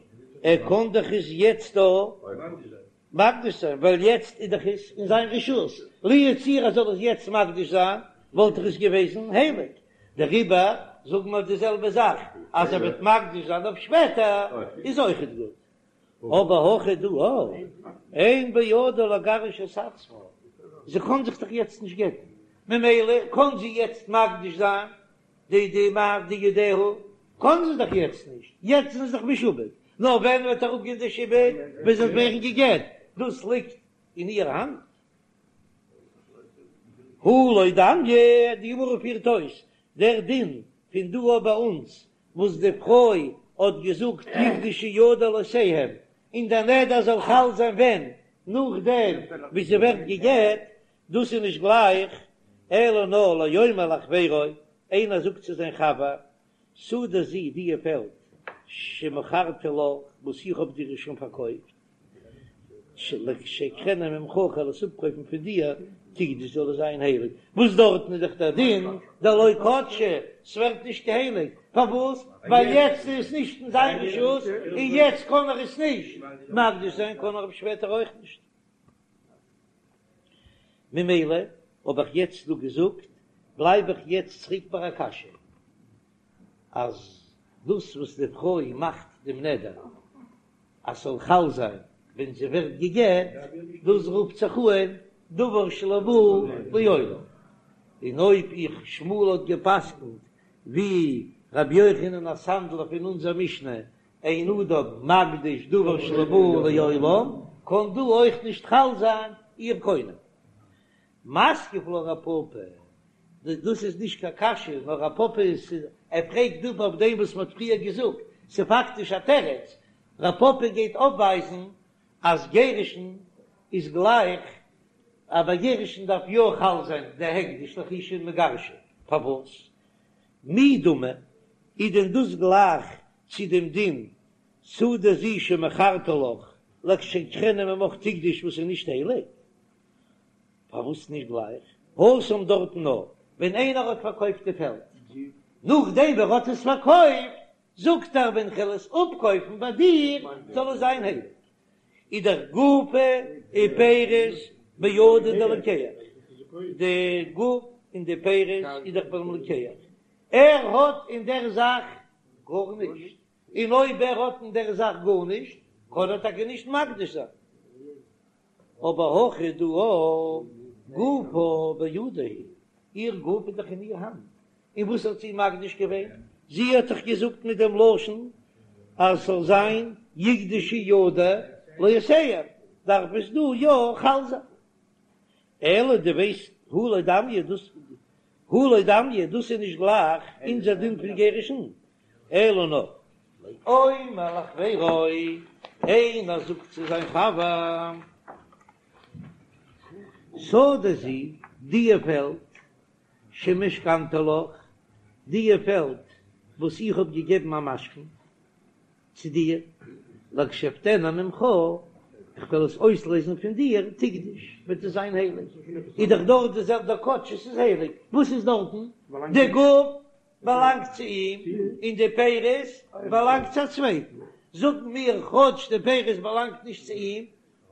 ער קען דאך עס יעצט דא מקדיש זיין, ווייל יעצט איז דאך עס אין זיין רשות, לו יצויר ער זאל עס יעצט מקדיש זיין, וואלט דאך עס געוועזן הייליג, דעריבער זאגן מיר די זעלבע זאך, אז ער וועט מקדיש זיין אויף שפעטער איז אויכעט גוט. אבער הכא דא אין בידה לגרש את עצמה, זי קען זיך דאך יעצט נישט גט'ן, ממילא קען זי יעצט מקדיש זיין די די מה די ידיה, קען זי דאך יעצט נישט, יעצט איז זי דאך משועבד, נאר ווען וועט אראפגיין די שעבוד, ווען זי וועט ווערן גע'גט, דאס ליגט אין איר האנט. הא לא דמיא, די גמרא פירט אויס דער דין פון דא אויף ביי אונז וואס די פרוי האט געזאגט יקדשו ידי לעושיהם, און דער נדר זאל חל זיין ווען? נאכדעם ווי זי ווערט גע'גט, דאס איז נישט גלייך, אלא נאר לאומר לחבירו. איינער זאגט צו זיין חבר, שדה זו דיע פעלד שמכרתי לך וואס איך האב דיר שוין פארקויפט, לכשאקחנה ממך כ'וועל עס אפקויפן פון דיר, תקדש זאל עס זיין הייליג, וואס דארטן איז דאך דער דין דלא קדשה, ס'ווערט נישט הייליג, פארוואס? ווייל יעצט איז עס נישט אין זיין רשות, און יעצט קען ער עס נישט מקדיש זיין, קען ער אויף שפעטער אויך נישט. ממילא האב איך יעצט דא געזאגט, בלייב איך יעצט צוריק ביי א קשיא, אז דאס וואס די פרוי מאכט דעם נדר אז ס'זאל חל זיין ווען זי ווערט גע'גט, דאס רופט זיך אן דבר שלא בא לעולם, און אויב איך שמואל האט גע'פסק'נט ווי רבי יוחנן הסנדלר פון אונזער משנה אין אדם מקדיש דבר שלא בא לעולם, קען דא אויך נישט חל זיין איר קונם. מתקיף לה רב פפא, דאס איז נישט קיין קשיא, נאר רב פפא איז, ער פרעגט דא אויף דעם וואס מ'האט פריער געזאגט, ס'איז פאקטיש א תירוץ, רב פפא גייט אויפווייזן אז גירושין איז גלייך, אז ביי גירושין דארף יא חל זיין די הקדש לאחר שמגרשה, פארוואס? מי דמי, איז דען דאס גלייך צו דעם דין שדה זו שמכרתי לך לכשאקחנה ממך תקדש וואס איז נישט הייליג? פארוואס נישט גלייך? התם דארטן נאר ווען איינער האט פארקויפט די פעלד, נאכדעם ווען ער האט עס פארקויפט זאגט ער ווען כ'על עס אפקויפן ביי דיר זאל עס זיין הייליג, איז דאך גופא ופירות בידיה דלוקח, די גוף און די פירות איז דאך ביים לוקח, ער האט אין דער זאך גארנישט, און אויב ער האט אין דער זאך גארנישט קען ער טאקע נישט מקדיש זיין. אבער הכא דא גופה בידה הוא, איר גוף איז דאך אין איר האנט, און וואס האט זי מקדיש געווען? זי האט דאך געזאגט מיט דעם לשון אז ס'זאל זיין יקדשו ידי לעושיהם, דארף עס דא יא חל זיין. אלא דו ווייסט הא לא דמיא דאס הא לא דמיא דאס איז נישט גלייך אונזער דין פון גירושין, אלא נאר לאומר לחבירו, איינער זאגט צו זיין חבר, שדה זו, דיע פעלד, שמשכנתי לך, דיע פעלד וואס איך האב געגעבן א משכון צו דיר, לכשאפדנה ממך, איך וועל עס אויסלעזן פון דיר, תקדש, וועט עס זיין הייליג. איז דאך דארט די זעלבע כאטש עס איז הייליג, וואס איז דארטן? די גוף באלאנגט צו אים און די פירות באלאנגט צו א צווייטן, זאגן מיר כאטש די פירות באלאנגט נישט צו אים,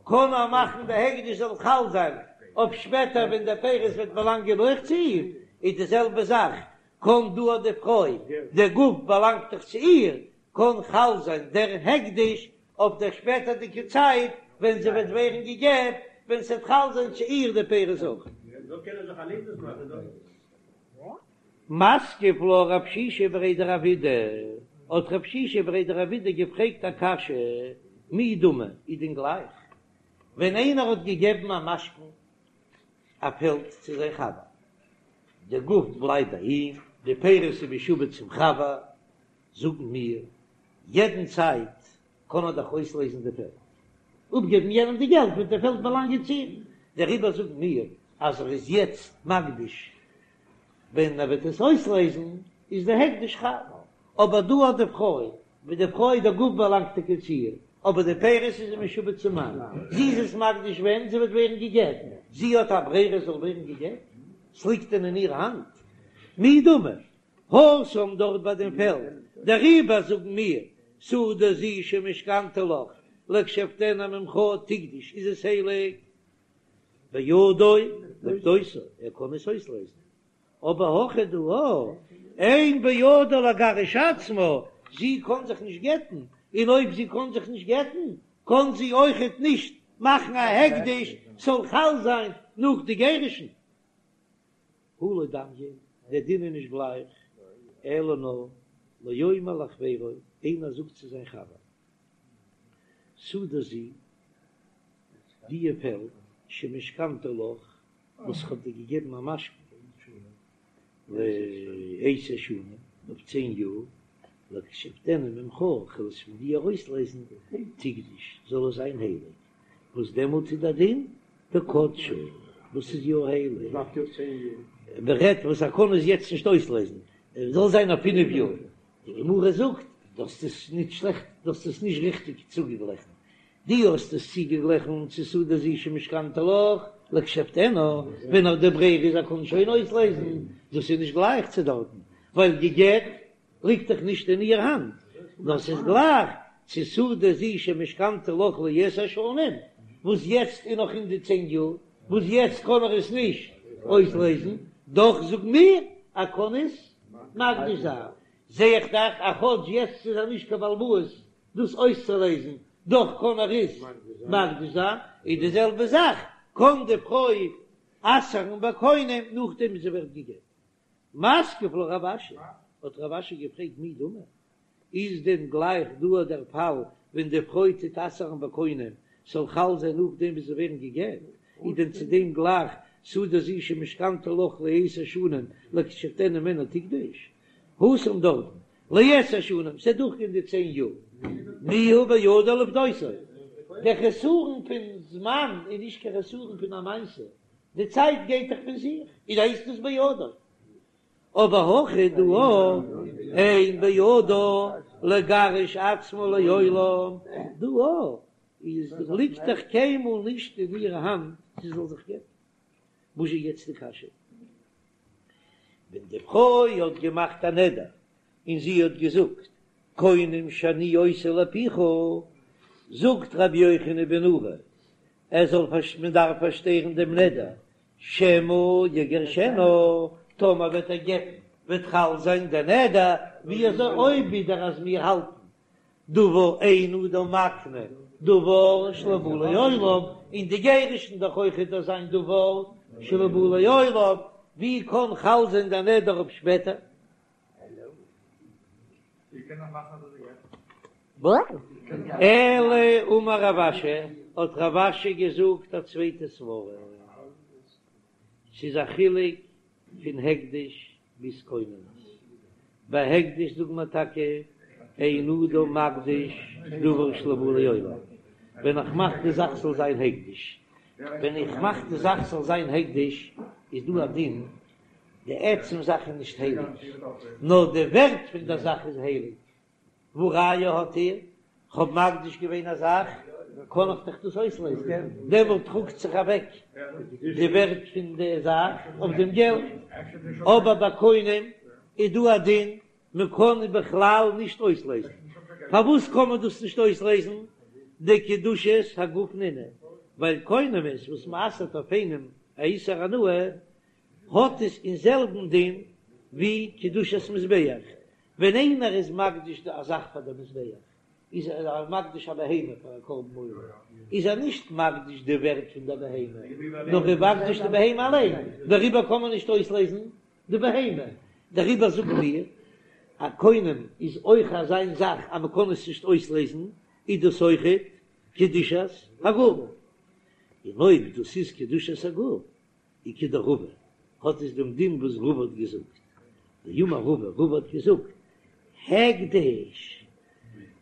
קען ער מאכן די הקדש זאל חל זיין אויף שפעטער ווען די פירות וועט באלאנגען אויך צו אים, איז די זעלבע זאך קען דא אט די פרוי, די גוף באלאנגט דאך צו איר, קען חל זיין דער הקדש אויף דער שפעטערדיגע צייט ווען זי וועט ווערן גע'גט, ווען ס'וועט חל זיין צו איר די פירות אויך. מתקיף לה רב שישא בריה דרב אידי, האט רב שישא בריה דרב אידי געפרעגט א קשיא, מי דמי, איז דען גלייך ווען איינער האט געגעבן א משכון א פעלד צו זיין חבר, די גוף בלייבט ביי אים, די פירות איז משועבד צום חבר, זאגן מיר, יעדן צייט קען ער דאך אויסלעזן די פעלד, אפגעבן יענעם די געלט וועט די פעלד באלאנגען צו אים, דעריבער זאגן מיר אז ער איז יעצט מקדיש, ווען ער וועט עס אויסלעזן איז די הקדש חל, אבער דא האט די פרוי, ווי די פרוי די גוף באלאנגט טאקע צו איר, אבער די פירות איז זי משועבד צום מאן, זי איז עס מקדיש ווען זי וועט ווערן גע'גט, זי האט א ברירה זאל ווערן גע'גט? ס'ליגט דען אין איר האנט? מי דמי התם דארט ביי דעם פעלד, דעריבער זאגן מיר, שדה זו שמשכנתי לך, לכשאפדנה ממך תקדש איז עס הייליג, בידו לפדותה, ער קען עס אויסלעזן, אבער הכא דא אין בידה לגרש עצמה, זי קען זיך נישט גט'ן, און אויב זי קען זיך נישט גט'ן, קען זי אויכעט נישט מאכן א הקדש ס'זאל חל זיין נאך די גירושין. הא לא דמיא, דער דין איז נישט גלייך, אלא נאר לאומר לחבירו, איינער זאגט צו זיין חבר, שדה זו, דיע פעלד, שמשכנתי לך, וואס איך האב דיר געגעבן א משכון, לעשר שנים, אויף צען יאר, לכשאפדנה ממך, כ'וועל עס פון דיר ארויסלעזן, תקדש, זאל עס זיין הייליג, וואס דעמאלט איז דער דין דקדשה, וואס איז יא הייליג. מען רעדט וואס ער קען עס יעצט נישט אויסלעזן, עס זאל זיין אויף פינף יאר, די גמרא זאגט דו האסט עס נישט שלעכט, דו האסט עס נישט ריכטיג צוגעגליכן, דו האסט עס צוגעגליכן צו שדה זו שמשכנתה לך לכשאפדנה, ווען נאר די ברירה איז ער קען שוין אויסלעזן, דאס איז נישט גלייך צו דארטן, ווייל גע'גט ליגט דאך נישט אין איר האנט, נאר ס'איז גלייך צו שדה זו שמשכנתה לך לעשר שנים, וואס יעצט איז נאך אין די צען יאר, וואס יעצט קען ער עס נישט אויסלעזן, דאך זאג מיר ער קען עס מקדיש זיין, זע איך דאך אז כאטש יעצט איז ער נישט קיין בעל הבית דאס אויסצולעזן, דאך קען ער עס מקדיש זיין, איז די זעלבע זאך קען די פרוי אסר'ן בקונם נאכדעם ווי זי ווערט גע'גט. מתקיף לה רב אשי, האט רב אשי געפרעגט מי דמי, איז דען גלייך דא דער פאל ווען די פרוי טוט אסר'ן בקונם ס'זאל חל זיין נאכדעם ווי זיי ווערן גע'גט, איז דען צו דעם גלייך שדה זו שמשכנתה לך לעשר שנים לכשאפדנה ממנה תקדש? התם דארטן לעשר שנים, ס'וועט דורכגיין די צען יאר, מיהא בידה לפדותו, דער חסרון פון זמן איז נישט קיין חסרון פון א מעשה, די צייט גייט דאך פון זיך, איז הייסט עס בידו. אבער הכא דא אין בידה לגרש עצמה לעולם, דא איז ליגט דאך קיינמאל נישט אין איר האנט זי זאל זיך גט'ן. וואס איז יעצט די קשיא? ווען די פרוי האט געמאכט א נדר און זי האט געזאגט קונם שאני עושה לפיך, זאגט רבי יוחנן בן נורי ער זאל מען דארף פארשטערן דעם נדר שמא יגרשנה, טאמער וועט ער גט'ן וועט חל זיין דער נדר, ווי אזוי אויב ווידער אז מיר האלטן דבר אין אדם מקנה דבר שלא בא לעולם, און די גירושין דאך אויכעט אזא דבר שלא בא לעולם, ווי קען חל זיין דער נדר אויף שפעטער? אלא אמר רב אשי, האט רב אשי געזאגט א צווייטע סברא, ס'איז א חילוק פון הקדש ביז קונמות, ביי הקדש זאגט מען טאקע אין אדם מקדיש דבר שלא בא לעולם, ווען איך מאך די זאך זאל זיין הקדש, ווען איך מאך די זאך זאל זיין הקדש איז דא א דין די עצם זאך איז נישט הייליג, נאר די ווערט פון דער זאך איז הייליג. והא ראיה האט איר, כ'האב מקדיש געווען א זאך, קען איך דאך דאס אויסלעזן, דעמאלט טראגט זיך אוועק די ווערט פון די זאך אויף דעם געלט. אבער ביי קונם איז דא א דין, מען קען בכלל נישט אויסלעזן. פארוואס קען מען דאס נישט אויסלעזן? דקדושת הגוף נינהו, ווייל קונמות וואס מען אסר'ט אויף איינעם א איסור הנאה, האט עס אין זעלבן דין ווי קדושת מזבח, ווען איינער איז מקדיש א זאך פאר די מזבח, איז ער מקדיש א בהמה פאר א קרבן עולה, איז ער נישט מקדיש די ווערט פון די בהמה, נאר ער איז מקדיש די בהמה אליין, דעריבער קען מען נישט אויסלעזן די בהמה, דעריבער זאגן מיר, א קונם איז אויך אזא זאך אז מען קען עס נישט אויסלעזן, איז דאס אויכעט קדושת הגוף, און אויב דאס איז קדושת הגוף, איז כדרבא, האט עס דעם דין וואס רבא האט געזאגט, דאמר רבא, רבא האט געזאגט, הקדש,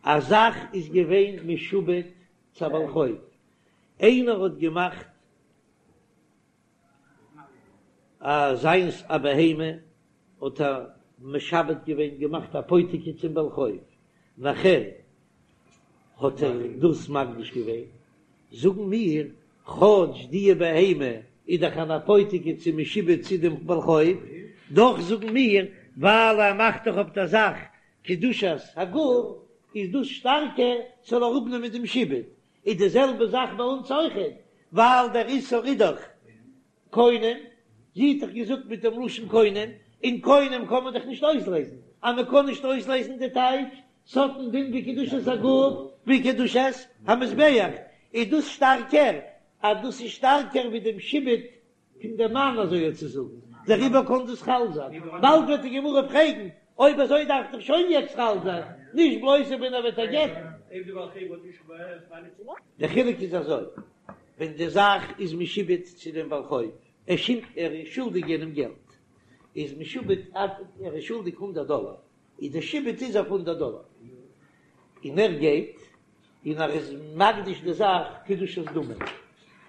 א זאך איז געווען משועבד צו א בעל חוב, איינער האט געמאכט א זיינס א בהמה, האט ער משעבד געווען, געמאכט אפותיקי צום בעל חוב, נאכער האט ער דאס מקדיש געווען, זאגן מיר, כאטש די בהמה איז דאך אן אפותיקי צו משועבד צו דעם בעל חוב, דאך זאגן מיר, ווייל ער מאכט דאך אויף דער זאך קדושת הגוף, איז דאס שטארקער ס'זאל אראפנעמען דעם שעבוד. איז די זעלבע זאך ביי אונז אויכעט, ווייל דער איסור איז דאך קונם, זי האט דאך געזאגט מיט דעם לשון קונם, און קונם קען מען דאך נישט אויסלעזן, אז מען קען נישט אויסלעזן די טייטש, ס'האט א דין ווי קדושת הגוף ווי קדושת המזבח, איז דאס שטארקער, אז דאס איז שטארקער ווי דעם שעבוד פון דעם מאן אזוי צו זאגן, דעריבער קען דאס חל זיין, באלד וועט די גמרא פרעגן, אויב אזוי דארף דאך שוין יעצט חל זיין, נישט בלויז ווען ער וועט איר גט'ן. דער חילוק איז אזוי, ווען די זאך איז משועבד צו דעם בעל חוב, ער ער איז שולדיג יענעם געלט, איז משועבד ער איז שולדיג הונדערט דאלער, איז דער שעבוד איז אויף הונדערט דאלער, און ער גייט און ער איז מקדיש די זאך קדושת דמים,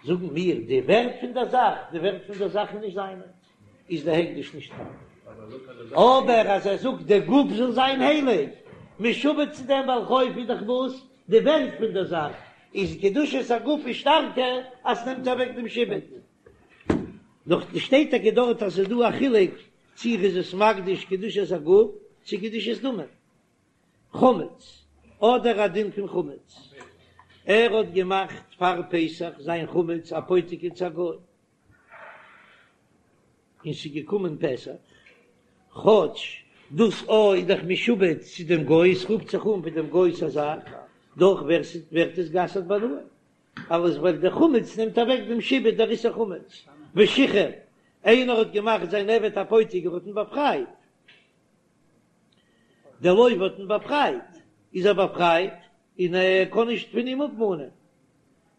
זאגן מיר די ווערט פון דער זאך, די ווערט פון דער זאך איז נישט זיינע. איז די הקדש נישט חל. אבער אז ער זאגט די גוף זאל זיין הייליג, משועבד צו דעם בעל חוב איז דאך וואס? די ווערט פון דער זאך איז קדושת הגוף איז שטארקער אז ס'נעמט אוועק דעם שעבוד. נאך שטייט טאקע דארט אז ס'איז דא א חילוק צו ער איז עס מקדיש קדושת הגוף צו קדושת דמים. חמץ, אדער א דין פון חמץ, ער האט געמאכט פאר פסח זיין חמץ אפותיקי צו א גוי, און ס'איז געקומען פסח, כאטש דאס א איז דאך משועבד צו דעם גוי, עס רופט זיך אן ווי דעם גוי'ס א זאך, דאך ווערט עס גע'אסר'ט בהנאה, אלעס ווייל דער חמץ נעמט אוועק דעם שעבוד דער איסור חמץ, ושחרר, איינער האט געמאכט זיין עבד אפותיקי ער האט אים באפרייט, דער לוה האט אים באפרייט, איז ער באפרייט און ער קען נישט פון אים אפמאנען.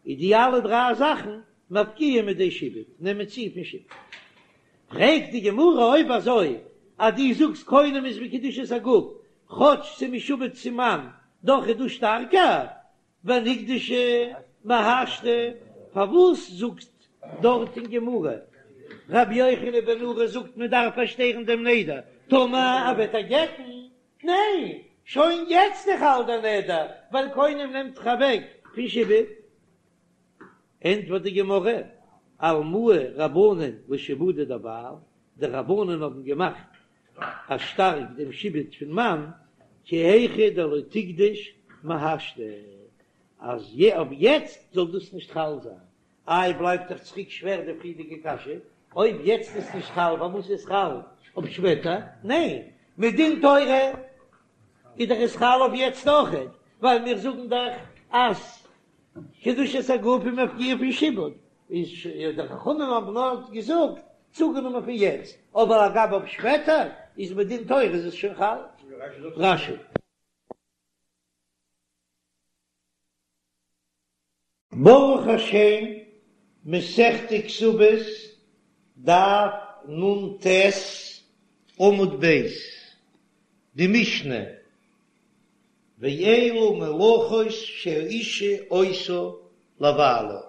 איז די אלע דריי זאכן מפקיע מידי שעבוד, נעמען צו פון שעבוד. פרעגט די גמרא אויב אזוי אז דו זאגסט קונם איז ווי קדושת הגוף, כאטש ס'איז משועבד צום מאן, דאך איז דאס שטארקער, ונקדשה מהשתא, פארוואס זאגט דארט אין גמרא רבי יוחנן בן נורי זאגט מען דארף פארשטערן דעם נדר טאמער ער וועט איר גט'ן? ניין, שוין יעצט איז חל דער נדר ווייל קונם נעמט דאך אוועק פון שעבוד. ענטפערט די גמרא, אלמוה רבנן לשעבודא דבעל, די רבנן האבן געמאכט א שטארק דעם שעבוד פון מאן, כי היכי דלא תיקדש מהשתא, אז אויף יעצט זאל דאס נישט חל זיין. איי בלייבט דאך צוריק שווער די פריערדיגע קשיא, אויב יעצט איז נישט חל פארוואס איז חל אויף שפעטער? ניין, מדין תורה איז דאך עס חל אויף יעצט אויכעט, ווייל מיר זאגן דאך אז קדושת הגוף איז מפקיע פון שעבוד, איז די חכמים האבן נאר געזאגט צוגענומען פון יעצט, אבער אגב אויף שפעטער איז מדין תורה איז עס שוין חל. רש"י. ברוך השם, מסכת כתובות, דף נ"ט, עמוד ב', די משנה, ואלו מלאכות שהאשה עושה לבעלה.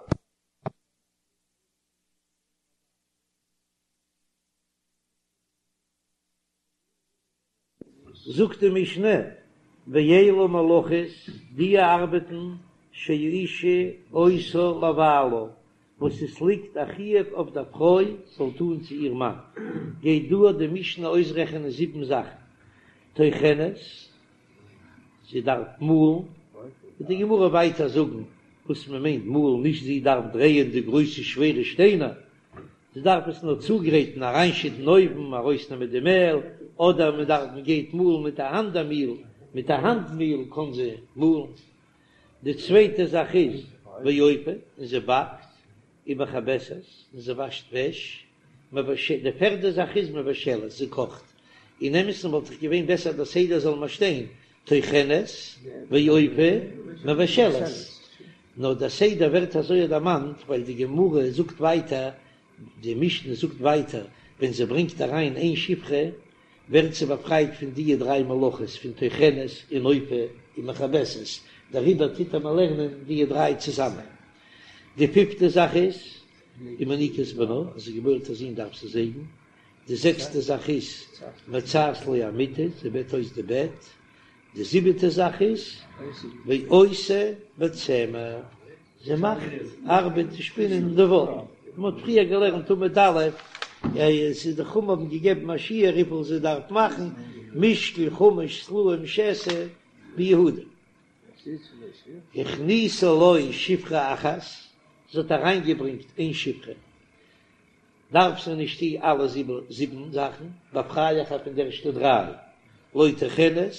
זאגט די משנה, ואלו מלאכות, די ארבעטן שהאשה עושה לבעלה, וואס עס ליגט א חיוב אויף דער פרוי זאל טון צו איר מאן, גייט דא די משנה אויסרעכענען זיבן זאכן, טוחנת, זי דארף מאלן, וועט די גמרא ווייטער זאגן וואס מען מיינט מאלן, נישט זי דארף דרייען די גרויסע שווערע שטיינער, זי דארף עס נאר צוגרייטן, אריינשיטן אויוון, ארויסנעמען די מעל, אדער מען דארף מען גייט מאלן מיט א האנט א מיל, מיט א האנט מיל קען זי מאלן. די צווייטע זאך איז ואופה, און זי באקט, ומכבסת, און זי וואשט וועש, די פערדע זאך איז מבשלת, זי קאכט, אין אמת'ן וואלט דאך געווען בעסער דער סדר זאל מען שטיין טוחנת ואופה מבשלת, נאר דער סדר ווערט אזוי דערמאנט ווייל די גמרא זאגט ווייטער, די משנה זאגט ווייטער, ווען זי ברענגט אריין איין שפחה ווערט זי באפרייט פון דיע דריי מלאכות פון טוחנת און אופה און מכבסת, דעריבער טוט מען לערנען דיע דריי צוזאמען. די פיפטע זאך איז, ומניקה את בנה, אז זי געבוירט א זון דארף זי זייגן. די זעקסטע זאך איז, מצעת לו המטה, זי בעט אויס די בעט. די זיבעטע זאך איז, ועושה בצמר, זי מאכט ארבעט צו שפינען די וואל. מען האט פריער געלערנט עמוד א', עס איז די חכמים האבן געגעבן א שיעור וויפיל זי דארף מאכן, משקל חמש סלעים שתא ביהודה. הכניסה לו שפחה אחת, זי האט אריינגעברענגט איין שפחה. דארף זי נישט טון אלע זיבן זאכן, באפריי איך איר פון די ערשטע דריי, לא טוחנת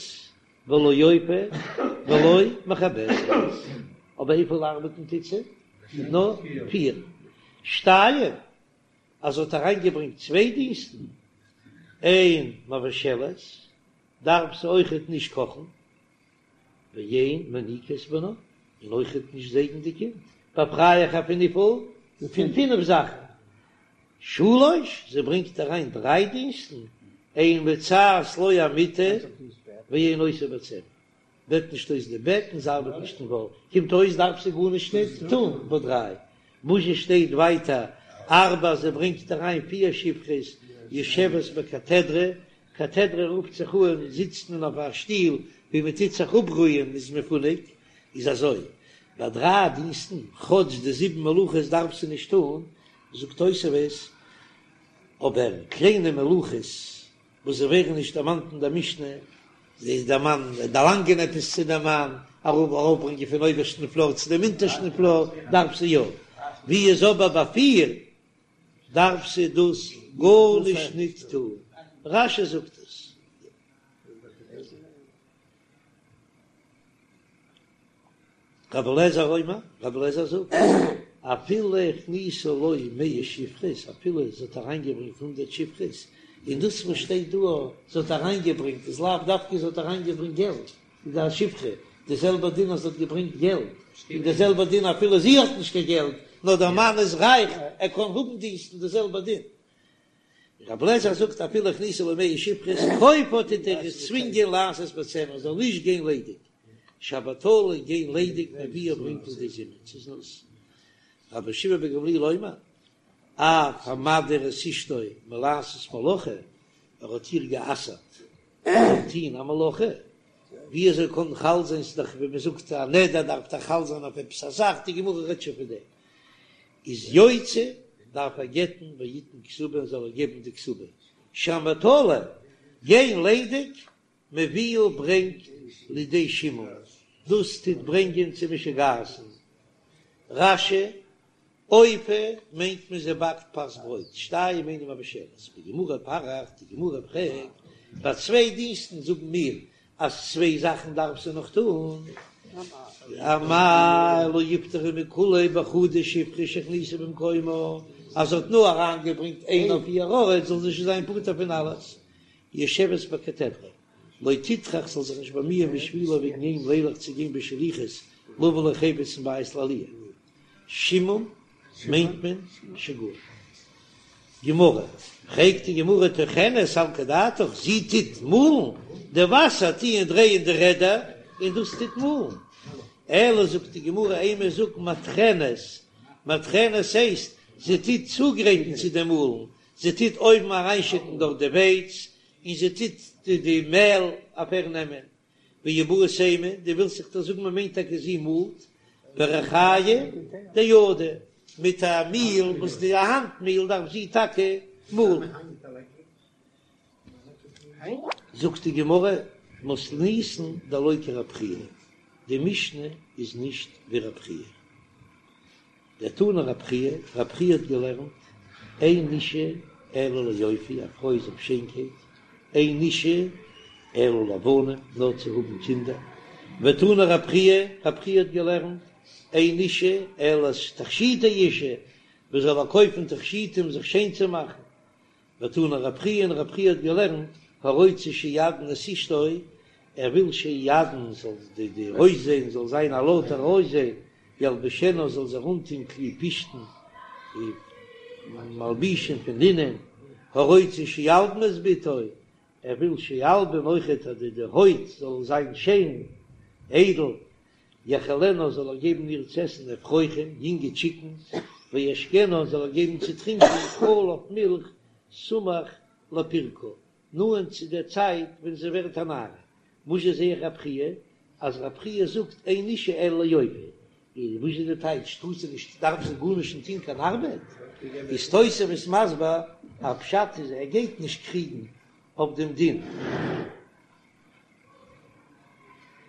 ולא אופה ולא מכבסת, אבער וויפיל ארבעטן טוט זי? נאר פיר. שתיים, אז זי האט אריינגעברענגט צוויי דינסטן, אין מבשלת, דארף זי אויכעט נישט קאכן, ואין מניקה את בנה, און אויכעט נישט זייגן די קינד, באפריי איך איר פון וויפיל? פון פינף זאכן. שלש, זי ברענגט אריין דריי דינסטן, אין מצעת לו המטה ואין עושה בצמר, בעט נישט אויס די בעט און זי ארבעט נישט אין וואל, קומט אויס דארף זי גארנישט נישט טון ביי דריי, וואס זשע שטייט ווייטער ארבע, זי ברענגט אריין פיר שפחות. יושבת בקתדרא, קתדרא רופט זיך אן זיצט מען אויף א שטיל ווי מען טוט זיך אפרוען מ'איז מפונק, איז אזוי, ביי דריי דינסטן, כאטש די זיבן מלאכות דארף זי נישט טון, זאגט תוספות, אבער קליינע מלאכות וואס זיי ווערן נישט דערמאנט אין דער משנה, זי דער מאן דערלאנגען עפעס צו דעם מאן, ארויפברענגען פון אויבערשטן פלאר צו דעם אונטערשטן פלאר, דארף זי יא, ווי איז אבער ביי פיר דארף זי דאס גארנישט ניט טון, רש"י זאגט עס. רבי אליעזר אומר, רבי אליעזר זאגט, אפילו הכניסה לו מאה שפחות, אפילו זי האט אריינגעברענגט הונדערט שפחות, און דאס וואס שטייט דא זי האט אריינגעברענגט איז לאו דווקא זי האט אריינגעברענגט געלט, איז א שפחה, די זעלבע דין אז זי האט געברענגט געלט, און די זעלבע דין אפילו זי האט נישט קיין געלט, נאר דער מאן איז רייך, ער קען האבן דינסטן, די זעלבע דין. רבי אליעזר זאגט אפילו הכניסה לו מאה שפחות, כופה טוט ער איר צווינגען לעשות בצמר זאל נישט גיין ליידיג, שהבטלה גיין ליידיג מביאה ברענגט לידי זימה צו זנות. רבן שמעון בן גמליאל אומר אף המדיר את אשתו מלעשות מלאכה, ער האט איר גע'אסר'ט צו טוהן א מלאכה, ווי אזוי קען חל זיין ס'איז דאך ווי מ'זאגט א נדר דארף דאך חל זיין אויף עפעס א זאך, די גמרא רעדט שוין פון דעם. איז יוציא דארף ער גט'ן ויתן כתובה און זאל ער געבן די כתובה שהבטלה גיין ליידיג מביאה ברענגט לידי שעמום דאס טוט ברענגען צו משוגעת'ן רש"י אופה מיינט מען זי באקט פת ברויט שתיים אינה מבשלת בגמרא פריך די גמרא פרעגט ביי צוויי דינסטן זאגן מיר אז צוויי זאכן דארף זי נאך טון, אמאי לא יפטרה מכולהו בחדא שפחה שהכניסה במקומה, אז זי האט נאר אריינגעברענגט איין אויף איר ארט זאל זי שוין זיין פטור פון אלעס, יושבת בקתדרא, לא תטרח זאל זיך נישט באמיען בשבילו וועגן אים לילך צו גיין בשליחות לבא לו חפץ מבית לעליה. שעמום מיינט מען שגעון. גמרא, פרעגט די גמרא טוחנת סלקא דעתך, זי טוט מאלן, די וואסער טוען דרייען די רעדער און דאס טוט מאלן. אלא זאגט די גמרא אימא זאג מטחנת, מטחנת הייסט זי טוט צוגרייטן צו דעם מאלן, זי טוט אויבן אריינשיטן דארט די ווייץ און זי טוט די מעל אפערנעמען. ואיבעית אימא, דו ווילסט זיך דאך זאגן מען מיינט טאקע זי מאלט בריחיא דידה, מיט א מיל וואס די האנט מיל דארף זי טאקע מאלן. זאגט די גמרא, מתניתין דלא כרב חייא, די משנה איז נישט ווי רב חייא. דתני רב חייא, רב חייא האט געלערנט, אין אישה אלא ליופי, א פרוי איז אויף שיינקייט, אין אישה אלא לבנים, נאר צו האבן קינדער, ותני רב חייא, רב חייא האט געלערנט, אין אישה אלא תכשיטי אישה, מען זאל קויפן תכשיטים זיך שיין צו מאכן, ותני רב חייא און רב חייא האט געלערנט הרוצה שיעדן את אשתו, ער וויל שיעדן זאל די די אויסזען זאל זיין א לויטער אויסזען, ילבישנה זאל זי אנטון כלי פשתן מלבושים פון לינען, הרוצה שילבין את בתו, ער וויל שילבין אויכעט אז די די הויט זאל זיין שיין איידל, יאכילנה זאל ער געבן איר צו עסן אפרוחים, יונגע טשיקנס, וישקנה זאל ער געבן צו טרינקען חלב מילך סמוך לפירקה, נאענט צו דער צייט ווען זי ווערט א נערה. וואס זשע זע איך רב חייא, אז רב חייא זאגט אין אישה אלא ליופי, איז וואס איז די טייטש טאר זי נישט דארף זי גארנישט נישט טון קיין ארבעט? איז תוספות מסביר אז פשט איז ער גייט נישט קריגן אויף דעם דין.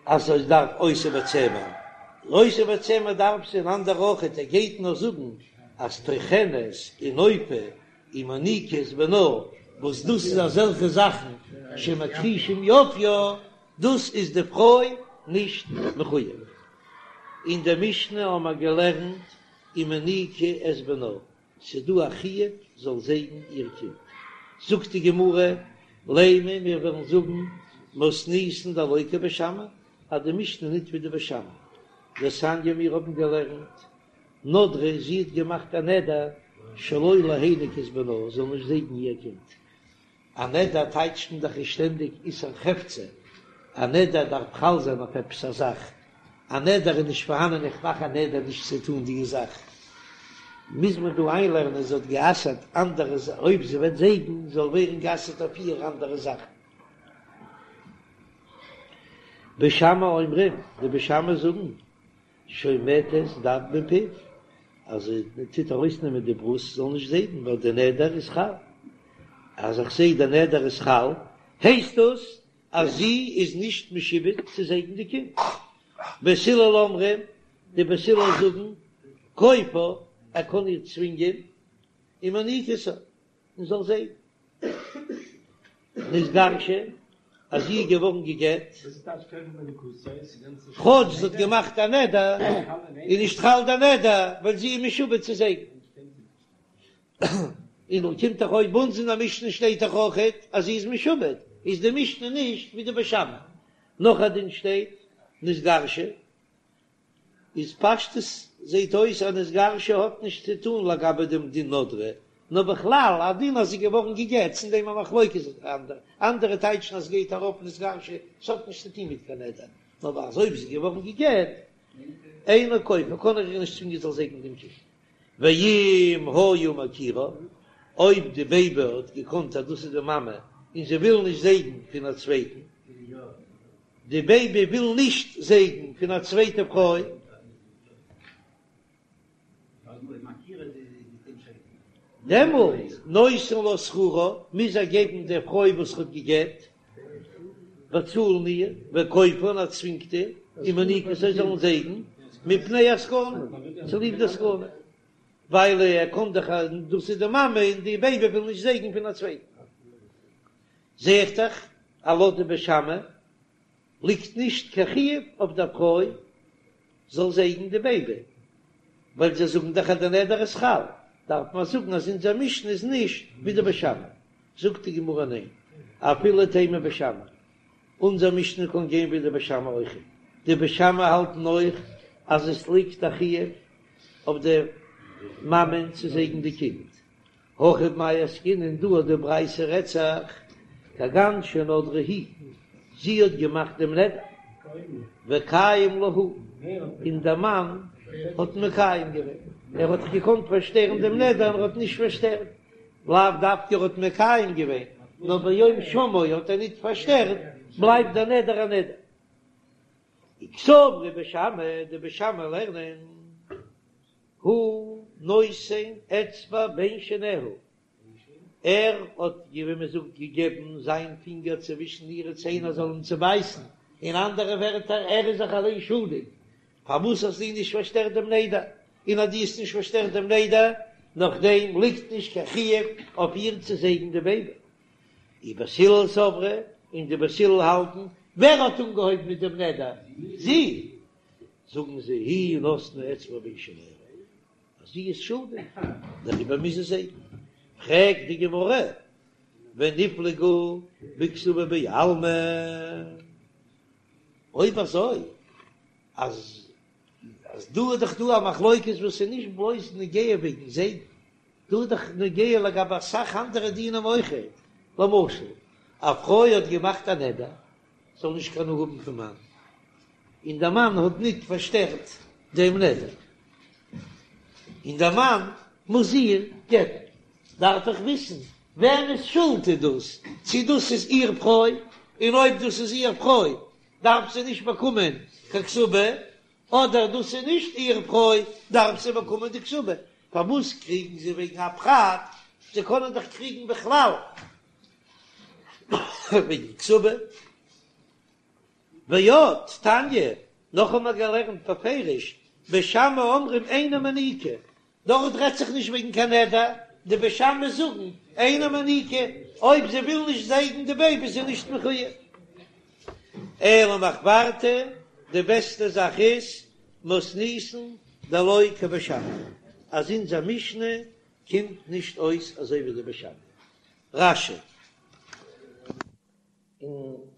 אז זי דארף עושה בצמר, עושה בצמר דארף זי אן אנדער אויכעט, ער גייט נאר זאגן אז טוחנת און אופה און מניקה את בנה, וואס דאס איז אזעלכע זאכן שמכחישים יופיה, דאס איז די פרוי נישט מחויב. אין די משנה האמער געלערנט ומניקה את בנה, ס'איז דא א חיוב זאל זייגן איר קינד. זאגט די גמרא, לימא מיר וועלן זאגן מתניתין דלא כבית שמאי, אז די משנה ניט ווי די בית שמאי. דתניא מיר האבן געלערנט, נדרה זי האט געמאכט א נדר שלא להניק את בנה זאל נישט זייגן איר קינד. א נדר טייטשט מען דאך שטענדיג איסור חפצא, א נדר דארף חל זיין אויף עפעס א זאך, א נדר איז נישט פארהאנען איך מאך א נדר נישט צו טון די זאך. מוז מען דא איינלערנען זי האט גע'אסר'ט אנדערע אויב זי וועט זייגן זאל ווערן גע'אסר'ט אויף איר אנדערע זאכן. בית שמאי אומרים, די בית שמאי זאגן, שומטת דד מפיו, אז זי טוט ארויסנעמען די ברוסט זאל נישט זייגן ווייל די נדר איז חל, אז איך זעה די נדר איז חל הייסט דאס אז זי איז נישט משועבד צו זייגן די קינד. בית הלל אומרים, די בית הלל זאגן, כופה, ער קען איר צווינגען, ומניקתו, און זאל זייגן. נתגרשה, אז זי איז געווארן גע'גט, כאטש זי האט געמאכט א נדר, איז נישט חל די נדר, ווייל זי איז משועבד צו זייגן. און קומט דאך אויס ביי אונז אין די משנה שטייט דאך אויכעט אז זי איז משועבד, איז די משנה נישט ווי די בית שמאי. נאך א דין שטייט נתגרשה, איז פשטות זעהט אויס אז נתגרשה האט נישט צו טאן לגבי דעם דין נדרה, נאר בכלל א דין אז זי איז געווארן גע'גט, אין דעם א מחלוקת אנדערע, אנדערע טייטשן אז ס'גייט ארויף נתגרשה, ס'האט נישט צו טון מיט קיין נדר, נאר אז אויב זי איז געווארן גע'גט, אינו כופה, קען ער איר נישט צווינגען זאל זייגן דעם קינד. ואם היה מכירה, אויב די בעיבי האט געקאנט אז דאס איז די מאמע און זי וויל נישט זייגן פון א צווייטן, די בעיבי וויל נישט זייגן פון א צווייטע פרוי, דעמאלט נותן לה שכרה, מוז ער געבן דער פרוי וואס ער האט גע'גט, באצאלן איר, וכופה און ער צווינגט איר, ומניקתו זאלן זייגן, מפני הסכנה, צוליב די סכנה, ווייל ער קען דאך אז דאס איז די מאמע און די בעיבי וויל נישט זייגן פון א צווייטן. זע איך דאך אז לויט די בית שמאי ליגט נישט קיין חיוב אויף דער פרוי זאל זייגן די בעיבי, ווייל זיי זאגן דאך אז די נדר איז חל, דארף מען זאגן אז אונזער משנה איז נישט ווי די בית שמאי. זאגט די גמרא ניין, אפילו תימא בית שמאי, אונזער משנה קען גיין ווי די בית שמאי אויך, די בית שמאי האלטן אויך אז עס ליגט א חיוב אויף די מאמען צו זייגן די קינד, הכא במאי עסקינן דא אט די ברייתא רעדט זיך כגון שנדרה היא, זי האט געמאכט דעם נדר, וקיים לה הוא, און דער מאן האט מקיים געווען, ער האט דאך געקאנט פארשטערן דעם נדר און ער האט נישט פארשטערט, לאו דווקא ער האט מקיים געווען, נאר ביום שמעו האט ער ניט פארשטערט, בלייבט דער נדר א נדר. וקסברי בית שמאי, די בית שמאי לערנען, הוא נותן אצבע בין שיניה, ער האט, ווי מען זאגט, געגעבן זיין פינגער צווישן אירע ציין ער זאל אים צובייסן, אין אנדערע ווערטער, ער איז זיך אליין שולדיג, פארוואס האסטו נישט פארשטערט דעם נדר, און אז דו האסט נישט פארשטערט דעם נדר, נאכדעם ליגט נישט קיין חיוב אויף איר צו זייגן די בעיבי. ובית הלל סברי, און די בית הלל האלטן, ווער האט אנגעהויבן מיט דעם נדר? זי! זאגן זיי, היא נתנה אצבע בין שיניה, אז זי איז שולדיג, דעריבער מוז זי זייגן. פרעגט די גמרא, וניפלגו בכתובה בעלמא, אויב אזוי אז אז דא איז דאך דא א מחלוקת וואס איז נישט בלויז נוגע וועגן זייגן, דא איז דאך נוגע לגבי אסאך אנדערע דינים אויכעט, למשל א פרוי האט געמאכט א נדר זאל נישט קיין הנאה האבן פון מאן, און דער מאן האט ניט פארשטערט דעם נדר, און דער מאן מוז איר גט'ן, דארף איך וויסן וועמענס שולד איז דאס, צי דאס איז איר פרוי, און אויב דאס איז איר פרוי דארף זי נישט באקומען קיין כתובה, אדער דאס איז נישט איר פרוי דארף זי באקומען די כתובה, פארוואס קריגן זיי וועגן א פרט, זיי קענען דאך קריגן בכלל וועגן כתובה. ועוד תניא, נאך האבן מיר געלערנט בפירוש, בית שמאי אומרים אינה מניקה, דארט רעדט זיך נישט וועגן קיין נדר, די בית שמאי זאגן אינה מניקה, אויב זי וויל נישט זייגן די בעיבי איז זי נישט מחויב. אלא מחוורתא, די בעסטע זאך איז מתניתין דלא כבית שמאי, אז אונזער משנה קומט נישט אויס אזוי ווי די בית שמאי. רש"י.